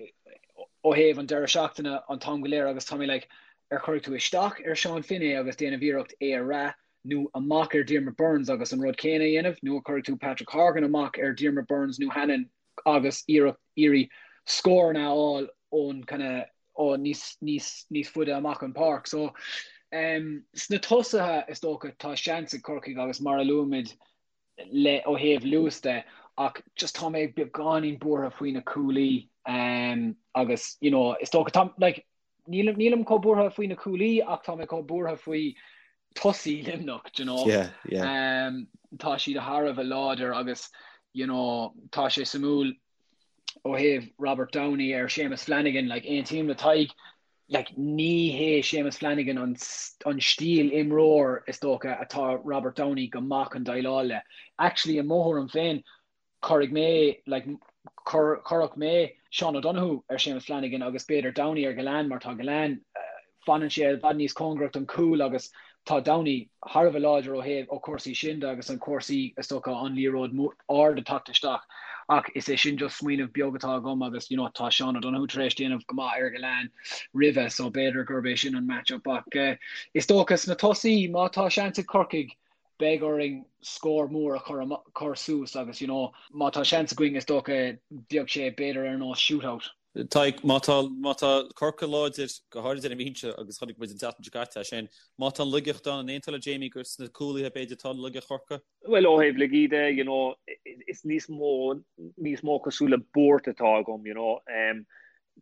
Speaker 9: ó thaobh an deireadh seachtaine an t-am go léir agus tá mé like ar chuirfidh tú isteach ar Seán Finn é agus déanamh iarracht é a bhrath nó amach ar Diarmaid Byrnes agus an rud céanna a dhéanamh, nó a chuirfidh tú Patrick Horgan amach ar Diarmaid Byrnes nó Hannon agus iarracht iarraidh scóranna a fháil ón kind of ó níos níos níos faide amach an páirc. So um, sna tosaithe is dócha tá seans ag Corcaigh agus mar a luaimid le ó thaobh luas de ach just tá mé beagáinín buartha faoi na cúlaí um, agus you know, is dócha tá like, Nílim, nílim chomh buartha faoi na cúlaí ach tá mé chomh buartha faoi tosaí Luimneach, do you know.
Speaker 2: Yeah, yeah.
Speaker 9: Um, tá siad thar a bheith láidir agus, you know, tá sé suimiúil ó thaobh Robert Downey ar Séamus Flanagan, like, aontaím le Tadhg, like, ní hé Séamus Flanagan an, an stíl imreoir is dócha atá Robert Downey go maith chun déileáil le. Actually, i mo thuairim féin, Cuirfidh mé, like, chuirfeadh mé Seán O'Donoghue ar Séamus Flanagan agus b'fhéidir Downey ar Gillane mar tá Gillane, fanann sé i bhfad níos cóngarach don chúl agus tá Downey thar a bheith láidir ó thaobh ó cúrsaí sin de agus an cúrsaí is dócha an liathróid ard ag teacht isteach ach is é sin just smaoineamh beag atá agam agus you know tá Seán O'Donoghue tar éis déanamh go maith ar Gillane roimhe so b'fhéidir gurb é sin an match-up ach is dócha sna tosaí má tá seans ag Corcaigh beidh orainn scór mór a chur chur suas agus you know má tá seans againn is dócha bheadh sé b'fhéidir ar nós shootout.
Speaker 2: Tadhg, má tá má tá Corcaigh láidir, go háirid ar an mbinse agus chonaic muid an tseachtain seo caite é sin, má tá an laigeacht ann, an aontófá le Jamie gur sna cúlaithe b'fhéidir atá laigeacht Chorcaí?
Speaker 8: Bhuel ó thaobh laigí de, you know, is níos mó níos mó cosúil le buairt atá agam, you know.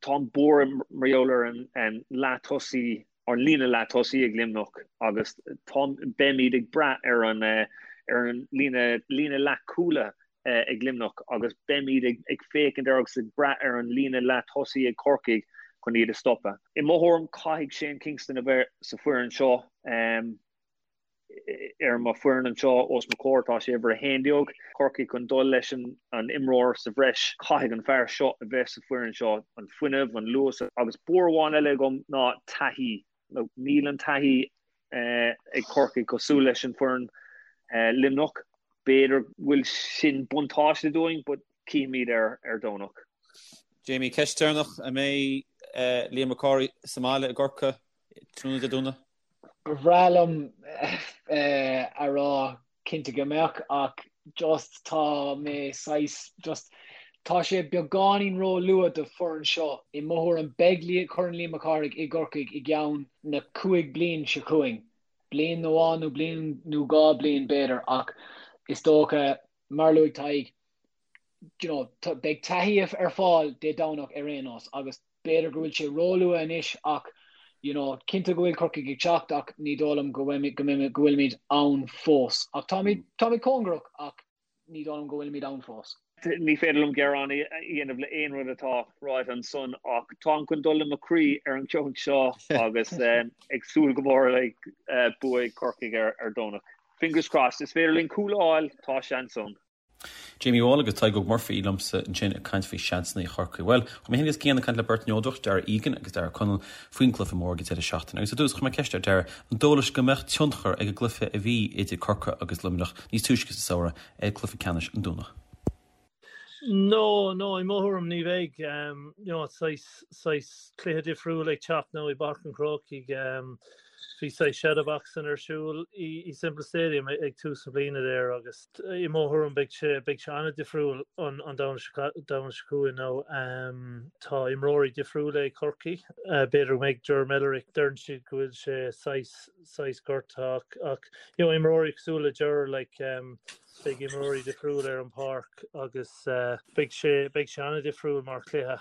Speaker 8: Tá an buairt mar gheall ar an an leath-tosaí an líne leath-tosaí ag Luimneach agus tá, beimid ag brath ar an ar an líne líne leath-chúla ag Luimneach agus beimid ag ag féachaint ar agus ag brath ar an líne leath-tosaí ag Corcaigh chun iad a stopadh. I mo thuairim caithfidh Shane Kingston a bheith sa foireann seo. Ar mo foireann anseo os mo chomhair tá sé uimhir 11. Corcaigh chun dul leis an imreoir sa bhreis. Caithfidh an fear seo a bheith sa foireann seo. An fuinneamh, an luas agus buairt amháin eile agam ná taithí. Níl an taithí ag Corcaigh cosúil leis an foireann Luimneach. B'fhéidir go bhfuil sin buntáiste dúinn but cífimid ar ar Domhnach.
Speaker 2: Jamie, ceist deireanach, an mbeidh Liam Mac Cárthaigh sa mbaile i gCorcaigh tráthnóna Dé Domhnaigh?
Speaker 9: Ba bhreá liom a rá cinnte go mbeadh ach just tá mé saghas just tá sé beagáinín ró-luath do foireann seo. I mo thuairim beidh Corn Liam Mac Cárthaigh i gCorcaigh i gceann na 5 bliain seo chugainn. Bliain amháin nó bliain nó 2 bliain b'fhéidir ach is dócha mar a luaigh Tadhg you know beidh taithí ar fáil Dé Domhnach ar aon nós agus. B'fhéidir go bhfuil sé róluath anois ach you know cinnte go bhfuil Corcaigh ag teacht ach ní dóigh liom go go bhfuilimid ann fós. Ach táimid táimid cóngarach ach ní dóigh liom go bhfuilimid ann fós.
Speaker 8: Ní féidir liom gearán a dhéanamh le aon rud atá ráite ansan ach táim chun dul le mo chroí ar an gceann seo agus ag súil go mór le bua ag Corcaigh ar Domhnach. Fingers crossed. Is féidir linn cúl a fháil, tá seans ann.
Speaker 2: Jamie Wall agus Tadhg Óg Murphy liomsa ansin ag caint faoi sheansanna Chorcaí. Bhuel, chuir mé féin agus Cian ag caint le beirt neodrach, Darragh Egan agus Darragh O'Connell, faoin gcluiche mór ag an deireadh seachtaine. Agus ar dtús, chuir mé ceist ar Darragh an dóigh leis go mbeadh tionchar ag an gcluiche a bhí idir Corcaigh agus Luimneach níos túisce sa samhradh ar chluiche ceannais an Domhnach.
Speaker 10: No, no, i mo thuairim ní bheidh. You know, saghas, saghas cluiche difriúil ag teacht now i bPáirc an Chrócaigh. Bhí saghas shadowboxing ar siúl i Semple Stadium ag tús na bliana there agus i mo thuairim beidh sé beidh sé an-difriúil an an Domhnach seo chugainn now. Tá imreoirí difriúla ag Corcaigh. B'fhéidir go mbeidh Ger Mellerick, deireann siad go bhfuil sé saghas saghas gortaithe ach ach you know imreoirí cosúil le Ger like beidh imreoirí difriúla ar an pháirc agus beidh sé beidh sé an-difriúil mar chluiche.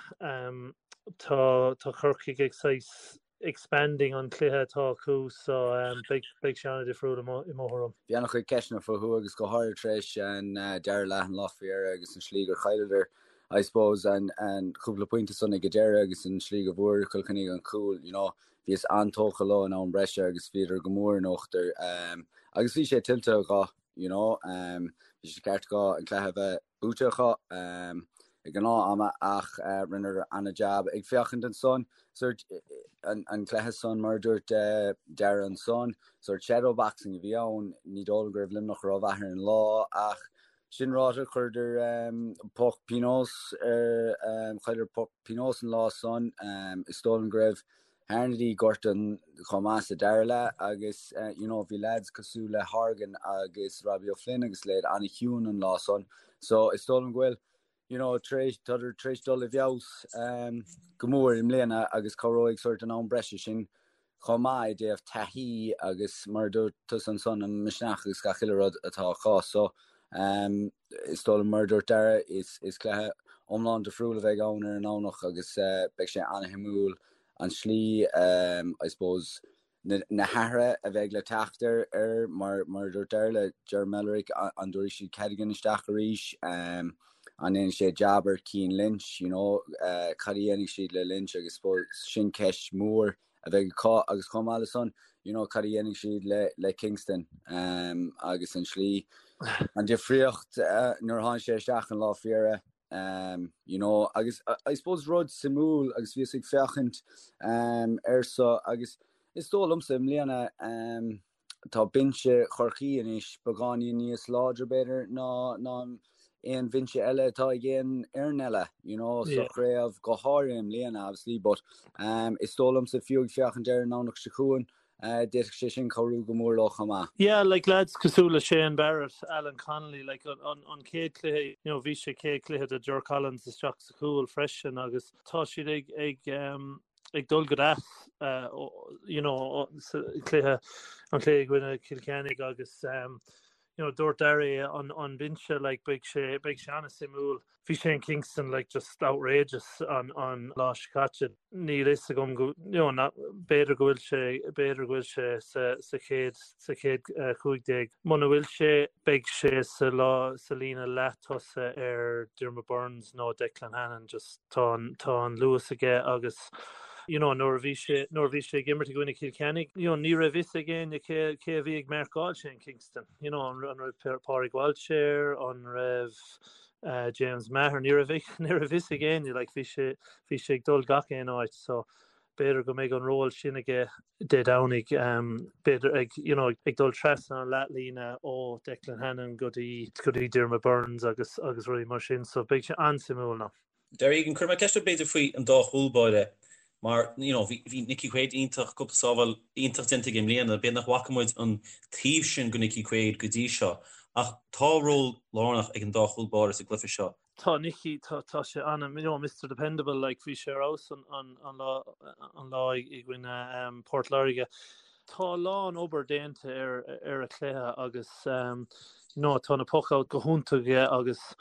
Speaker 10: Tá tá Corcaigh ag saghas expanding an cluiche atá acu so beidh beidh sé an-difriúil i mo i mo thuairim.
Speaker 11: Bhí an-chuid ceisteanna fúthu agus go háirithe tar éis an dara leath an lá faoi dheireadh agus an slí gur chailleadar I suppose an an cúpla pointe san ag an deireadh agus an slí go bhfuair Cill Chainnigh an cúl you know bhíos an-tógtha leo in am breise agus bhíodar go mór in uachtar agus bhí sé tuillte acu you know bhí sé ceart acu an cluiche a bheith buaite acu ag an leath ama ach rinneadar an-jab ag féachaint ansan sort an cluiche san mar a dúirt Darragh ansan sort shadow boxing a bhí ann ní dóigh liom go raibh Luimneach rómhaith ar an lá ach sin ráite chuireadar poc pionóis ar chailleadar poc pionóis an lá san is dóigh liom go raibh Harnedy gortaithe chomh maith sa dara leath agus you know bhí lads cosúil le Horgan agus Robbie O'Flynn agus leithéid an-chiúin an lá san so is dóigh liom go bhfuil you know tar éis tádar tar éis dul i bhfeabhas um, go mór i mbliana agus cabhróidh sort an am breise sin chomh maith i dtaobh taithí agus mar a dúirt tusa ansan an misneach agus gach uile rud atá acu so um, is dóigh liom mar a dúirt Darragh is, is cluiche iomlán difriúil a bheidh ann ar an Domhnach agus uh, beidh sé an-shuimiúil an slí, I suppose, na hathruithe a bheidh le teacht ar, ar mar, mar a dúirt Darragh le Ger Mellerick, an dtabharfaidh siad Cadogan isteach arís, an ndéanfaidh sé jab ar Cian Lynch, you know, cad a dhéanfaidh siad le Lynch agus suppose sin ceist mhór a bheidh acu agus chomh maith le san, you know, cad a dhéanfaidh siad le, le Kingston agus an slí, an difríocht nuair a tháinig sé isteach an lá faoi dheireadh. Um, you know, agus I suppose rud suimiúil agus bhíos ag féachaint um, air so agus is dóigh liomsa i mbliana um, tá binse Chorcaí anois beagáinín níos láidre b'fhéidir ná ná aon bhinse eile atá ag aon fhoireann eile, you know, sa chraobh go háirithe i mbliana obviously, but um, is dóigh liomsa fiú ag féachaint ar an Domhnach seo chugainn D'fhéadfadh sé sin cabhrú go mór leo chomh maith.
Speaker 10: Yeah, like lads cosúil le Shane Barrett, Alan Connolly, like an, an, an chéad cluiche, you know, bhí sé chéad cluiche do Ger Collins isteach sa chúl freisin agus tá siad ag, ag, um, ag dul go deas, uh, you know, sa cluiche, an cluiche i gcoinne Cill Chainnigh agus um, you know, dúirt Darragh an, an binse, like, beidh sé, beidh sé an-suimiúil. Bhí Shane Kingston like just outrageous an an lá seo caite. Níl fhios agam go you know na b'fhéidir go bhfuil sé b'fhéidir go bhfuil sé sa sa chéad sa chéad 15. Muna bhfuil sé beidh sé sa lá sa líne leath-tosaigh ar Diarmaid Byrnes nó Declan Hannon just tá an tá an luas aige agus you know nuair a bhí sé nuair a bhí sé ag imirt i gcoinne Cill Chainnigh you know ní raibh fhios ag éinne cé cé a bhí ag marcáil Shane Kingston you know an an raibh Pádraig Walsh air an raibh James Maher ní raibh ní raibh fhios ag éinne like bhí sé bhí sé ag dul gach aon áit so b'fhéidir go mbeidh an ról sin aige Dé Domhnaigh um, b'fhéidir ag you know, ag dul trasna an leathlíne ó Declan Hannon go dtí go dtí Diarmaid Byrnes agus agus rudaí mar sin so beidh sé an-suimiúil now.
Speaker 2: Darragh Egan, cuirfidh mé ceist ort b'fhéidir faoi an dá chúl báire mar you know bhí bhí Nicky Quaid iontach, cúpla sábháil iontach déanta aige i mbliana, b'fhéidir nach bhfaca muid an taobh sin de Nicky Quaid go dtí seo ach tá ról lárnach ag an dá chúl báire sa gcluiche seo.
Speaker 10: Tá Nicky, tá tá sé ana, you know Mister Dependable like bhí sé ar fheabhas an an an lá an lá i gcoinne um, Port Láirge. Tá a lán obair déanta ar ar a chluiche agus um, you know tá na puck-out go hiontach aige agus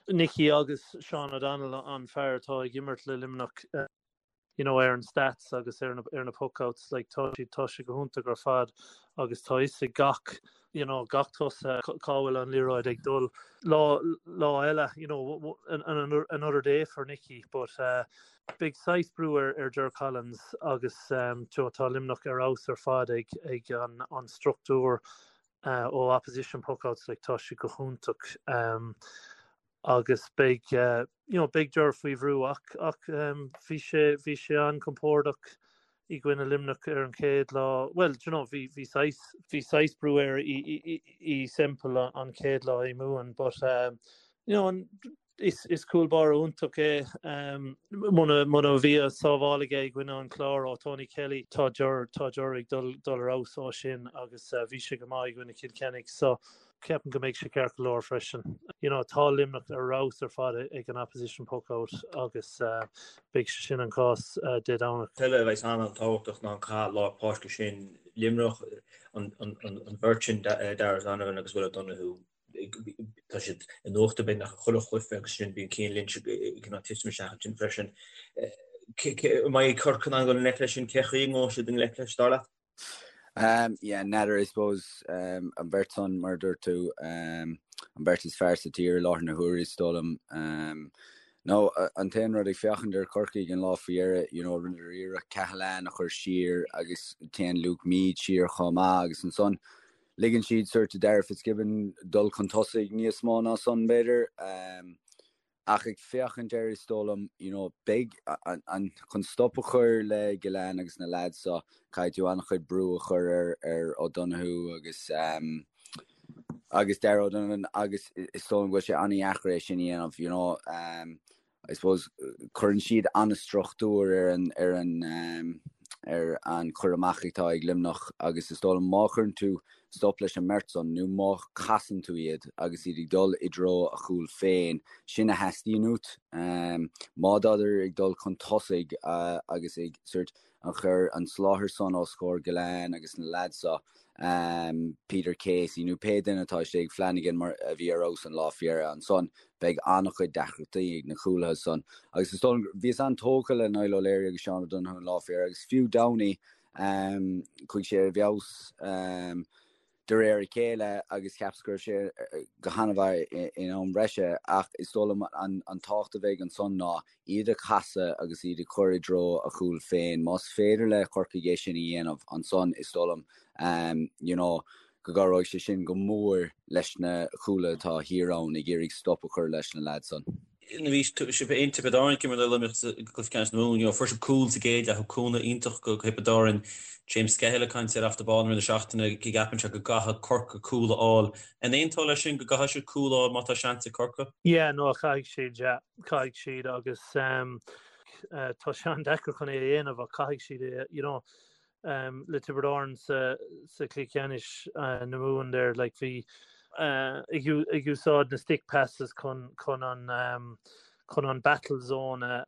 Speaker 10: Nicky agus Sean O'Donnell an fear atá ag imirt le Luimneach. you know ar an stats agus ar na ar na puckouts like tá siad tá sé go hiontach ar fad agus tá fhios ag gach you know gach tosaí cá bhfuil an liathróid ag dul lá lá eile you know another day for Nicky but uh, beidh saghas brú ar ar Ger Collins agus um, tá Luimneach ar fheabhas ar fad ag ag an an struchtúr uh, ó opposition puckouts like tá sé go hiontach um, agus beidh you know beidh Ger faoi bhrú ach ach bhí sé bhí sé an-compordach i gcoinne Luimneach ar an chéad lá bhuel do you know bhí bhí saghas bhí saghas brú air i i i Semple an chéad lá i Mumhan but um, you know an is is cúl báire iontach é um, muna muna bhí a sábháil aige i gcoinne an Chlár ó Tony Kelly tá Ger tá Ger ag dul dul ar fheabhas ó sin agus uh, bhí sé go maith i gcoinne Cill Chainnigh so Ceapaim go mbeidh sé ceart go leor freisin. You know, tá Luimneach ar fheabhas ar fad ag an opposition puck out agus beidh sé sin an cás Dé Domhnaigh.
Speaker 3: Eile a bheas an-tábhachtach ná an cath lár páirce sin Luimneach, an bheirt sin, Darragh O'Donovan agus Will O'Donoghue, tá siad in uachtar beagnach i chuile chluiche agus sin bíonn Cian Lynch ag cineál titim isteach ansin freisin. An mbeidh Corcaigh in ann dul i ngleic leis sin? Cé chaoi a ngabhfaidh siad i ngleic leis, dar leat?
Speaker 11: Um, yeah, n'fheadar, I suppose, um, an bheirt san, mar a dúirt tú, um, an bheirt is fearr sa tír i láthair na huaire, is dóigh liom. Um, no, an t-aon rud ag féachaint ar Chorcaigh an lá faoi dheireadh, you know, rinneadar iarracht Cahalane a chur siar agus téann Luke Meade siar chomh maith agus ansan ligeann siad sort do Darragh Fitzgibbon dul chun tosaigh níos mó ná san, b'fhéidir. Um, Ach ag féachaint air is dóigh liom, you know, beidh an, chun stop a chur le Gillane agus na lads seo, caithfidh tú an-chuid brú a chur ar, ar O'Donoghue agus, um, agus Darragh O'Donovan agus is dóigh liom go bhfuil sé an-dheacair é sin a dhéanamh, you know. Um, I suppose cuireann siad an-struchtúr ar an, ar an, um, ar an chur amach atá ag Luimneach agus is dóigh liom má chuireann tú stop leis an mbeirt san nó má chasann tú iad agus iad ag dul i dtreo a chúil féin, sin a theastaíonn uait. Má tádar ag dul chun tosaigh agus ag sort an chur an soláthar san os comhair Gillane agus na lads seo, Peter Casey nó pé duine atá istigh, Flanagan mar a bhí ar fheabhas an lá faoi dheireadh ansan, beidh an-chuid deacrachtaí ag na cúlaithe san. Agus is dóigh liom, bhíos an-tógtha le Niall O'Leary agus Seán O'Donoghue an lá faoi dheireadh agus fiú Downey, Chuaigh sé i bhfeabhas de réir a chéile agus cheapas go raibh sé go han-mhaith in am breise ach is dóigh liom an tábhacht a bheidh ansan ná iad a chasadh agus iad a chur i dtreo a chúil féin. Más féidir le Corcaigh é sin a dhéanamh ansan is dóigh liom you know go gcabhróidh sé sin go mór leis na cúlaithe atá thiar ann ag iarraidh stop a chur leis na leaids san.
Speaker 2: Nuair a bhí sibh in Tiobraid Árann ag imirt le Luimneach sa gcluiche ceannais na Mumhan, you know, fuair sibh cúl sa gcéad leath, cúnamh iontach go Thiobraid Árann, James Skehill ag caint ar Off The Ball i rith na seachtaine, go gceapann sé go gcaithfidh Corcaigh cúl a fháil. An aontófá leis sin, go gcaithfidh siad cúl a fháil má tá seans ag Corcaigh?
Speaker 10: Yeah, no, caithfidh siad, yeah, caithfidh siad agus um, uh, tá sé an-deacair chun é a dhéanamh ach caithfidh siad é, you know, le Tiobraid Árann sa chluiche ceannais na Mumhan there like bhí ag úsáid na stick passes chun chun an chun an battle zone a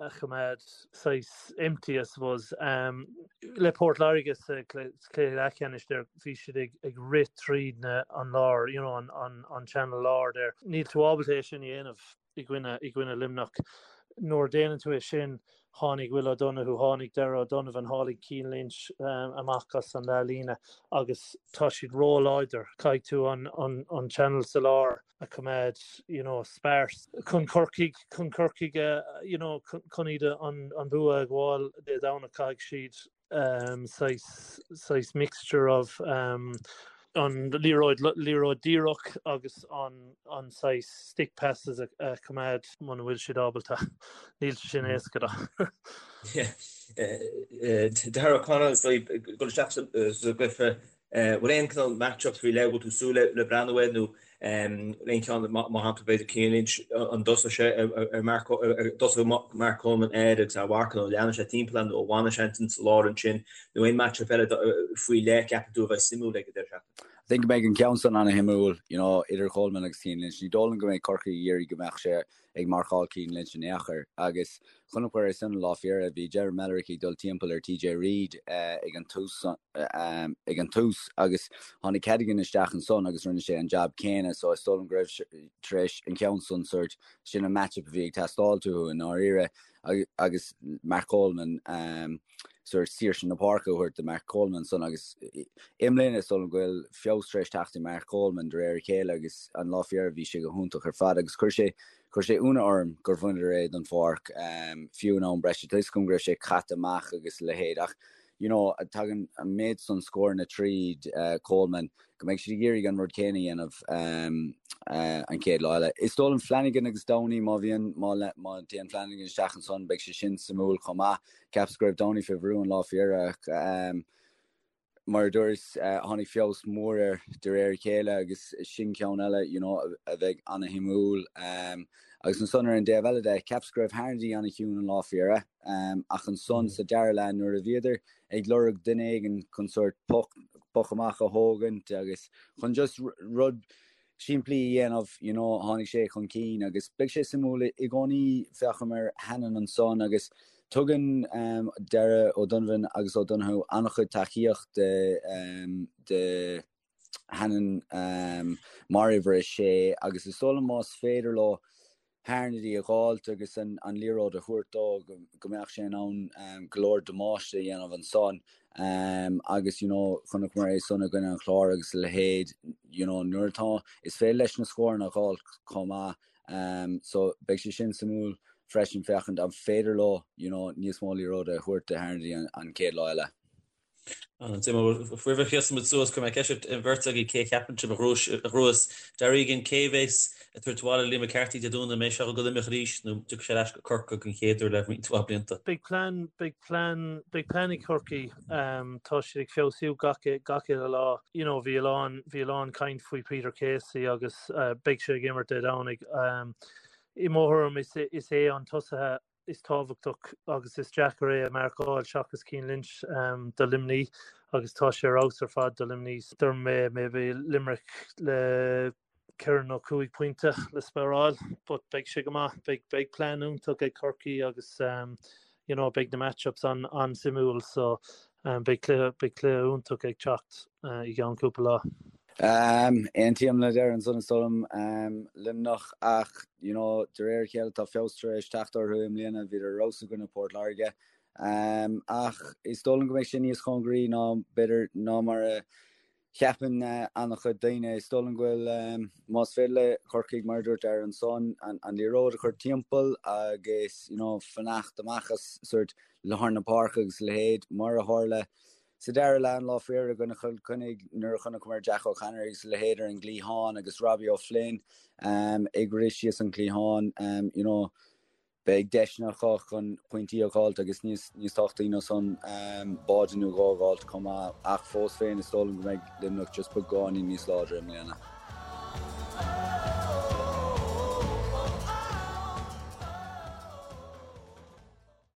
Speaker 10: a choimeád saghas empty I suppose. Le Port Láirge sa chluiche leathcheannais there bhí siad ag ag rith tríd na an lár you know an an an channel lár there. Níl tú ábalta é sin a dhéanamh. i gcoinne i gcoinne Luimneach. Nuair a déanann tú é sin, tháinig Will O'Donoghue, tháinig Darragh O'Donovan, tháinig Cian Lynch amach as an leathlíne agus tá siad ró-láidir. Caithfidh tú an an an channel sa lár a choimeád you know sparse chun Corcaigh chun Corcaigh a you know chun iad an an bua a ghabháil Dé Domhnaigh caithfidh siad saghas saghas mixture of an liathróid liathróid díreach agus an an saghas stick passes a choimeád muna bhfuil siad ábalta. Níl sé sin éasca
Speaker 3: do. Darragh O'Connell ag dul isteach sa gcluiche bhfuil aon cineál match-up faoi leith a bhfuil tú ag súil le breathnú air nó aon cheann mar shampla b'fhéidir Cian Lynch an dtosóidh sé ar Mark an dtosóidh Mark Coleman air agus é a mharcadh nó leanfaidh sé timpeall air nó an bhfanfaidh sé ansin sa lár ansin nó aon match-up eile faoi leith ceapann tú a bheidh suimiúil ag an deireadh seachtaine?
Speaker 11: I think go mbeidh an ceann san ana-shuimiúil, you know, idir Coleman agus Cian Lynch. Ní dóigh liom go mbeidh Corcaigh ag iarraidh go mbeadh sé ag marcáil Cian Lynch in aon chor. Agus chonaiceamar é san an lá faoi dheireadh, bhí Ger Mellerick ag dul timpeall ar TJ Reid ag an tús ag an tús agus tháinig Cadogan isteach ansan agus rinne sé an jab céanna so is dóigh liom go raibh tar éis an ceann san sort sin an matchup a bhí ag teastáil uathu i ndáiríre agus Mark Coleman sort saoirse na páirce a thabhairt do Mark Coleman ansan agus i mbliana is dóigh liom go bhfuil feabhas tar éis teacht ar Mark Coleman de réir a chéile agus an lá faoi dheireadh bhí sé go hiontach ar fad agus chuir sé chuir sé ionadh orm gur bhaineadar é den pháirc fiú in am breise. Tá 'fhios agam go raibh sé caite amach agus a leithéid ach you know tagann an méid san scóranna tríd Coleman go mbeidh siad ag iarraidh an rud céanna a dhéanamh an chéad lá eile. Is dóigh liom Flanagan agus Downey má bhíonn má má théann Flanagan isteach ansan beidh sé sin suimiúil chomh maith. Cheapas go raibh Downey fé bhrú an lá faoi dheireadh ach mar a dúras tháinig feabhas mór air de réir a chéile agus sin ceann eile you know a bheidh ana-shuimiúil. Agus ansan ar an dtaobh eile de cheapas go raibh Harnedy ana-chiúin an lá faoi dheireadh ach ansan sa dara leath nuair a bhíodar ag lorg duine éigin chun sórt poc poc amach a thógaint agus chun just rud simplí a dhéanamh, you know, tháinig sé chun cinn agus beidh sé suimiúil i gcónaí féachaim ar Hannon ansan agus tugann um, Darragh O'Donovan agus O'Donoghue an-chuid tacaíocht de, um, de Hannon um, mar uimhir a sé agus is dóigh liom más féidir leo Harnedy a dh'fháilt agus an liathróid a thabhairt dó go mbeadh sé in ann go leor damáiste a dhéanamh ansan agus you know chonaiceamar é san i gcoinne an Chláir agus a leithéid you know nuair atá is féidir leis na scóranna a dh'fháilt chomh maith so beidh sé sin suimiúil freisin féachaint an féidir leo you know níos mó liathróide a thabhairt do Harnedy an chéad lá eile.
Speaker 2: Roimh a sheasann muid suas, cuirfidh mé ceist ar an bheirt agaibh cé a cheapann sibh a ghnóthós Darragh Egan, cé a bheas ag tabhairt abhaile Liam McCarthy Dé Domhnaigh, an mbeidh sé ag dul go Luimneach arís nó an dtiocfaidh sé ar ais go Corcaigh den chéad uair le roinnt mhaith blianta?
Speaker 10: Beidh plean, beidh plean, beidh plean ag Corcaigh. Tá siad ag feabhsú gach, gach uile lá. You know, bhí a lán, bhí a lán caint faoi Peter Casey agus beidh sé ag imirt Dé Domhnaigh. I mo thuairim is, is é an tosaithe is tábhachtach agus is deacair é a mharcáil seachas Cian Lynch do Luimnigh agus tá sé ar fheabhas ar fad do Luimnigh. Dúirt mé maybe Limerick le ceithre nó cúig pointe le spáráil but beidh sé go maith. Beidh beidh plean iontach ag Corcaigh agus you know beidh na match-ups an an-suimiúil so beidh cluiche beidh cluiche iontach ag teacht i gceann cúpla lá.
Speaker 11: Aontaím le Darragh ansan is dóigh liom Luimneach ach you know de réir a chéile tá feabhas tar éis teacht orthu i mbliana, bhíodar ar fheabhas i gcoinne Port Láirge. Ach is dóigh liom go mbeidh sé níos cóngaraí ná b'fhéidir ná mar a cheapann an-chuid daoine. Is dóigh liom go bhfuil más féidir le Corcaigh mar a dúirt Darragh ansan an liathróid a chur timpeall agus you know fanacht amach as sort lár na páirce agus a leithéid mar a tharla Sa dara leath an lá faoi dheireadh i gcoinne Chill Chainnigh nuair a chonaiceamar Jack O'Connor agus a leithéid ar an gcliathán agus Robbie O'Flynn ag rith síos an cliathán you know beidh deiseanna acu chun pointí a dh'fháilt agus níos níos tábhachtaí ná san báide nó dhó a dh'fháilt chomh maith ach fós féin is dóigh liom go mbeidh Luimneach just beagáinín níos láidre i mbliana.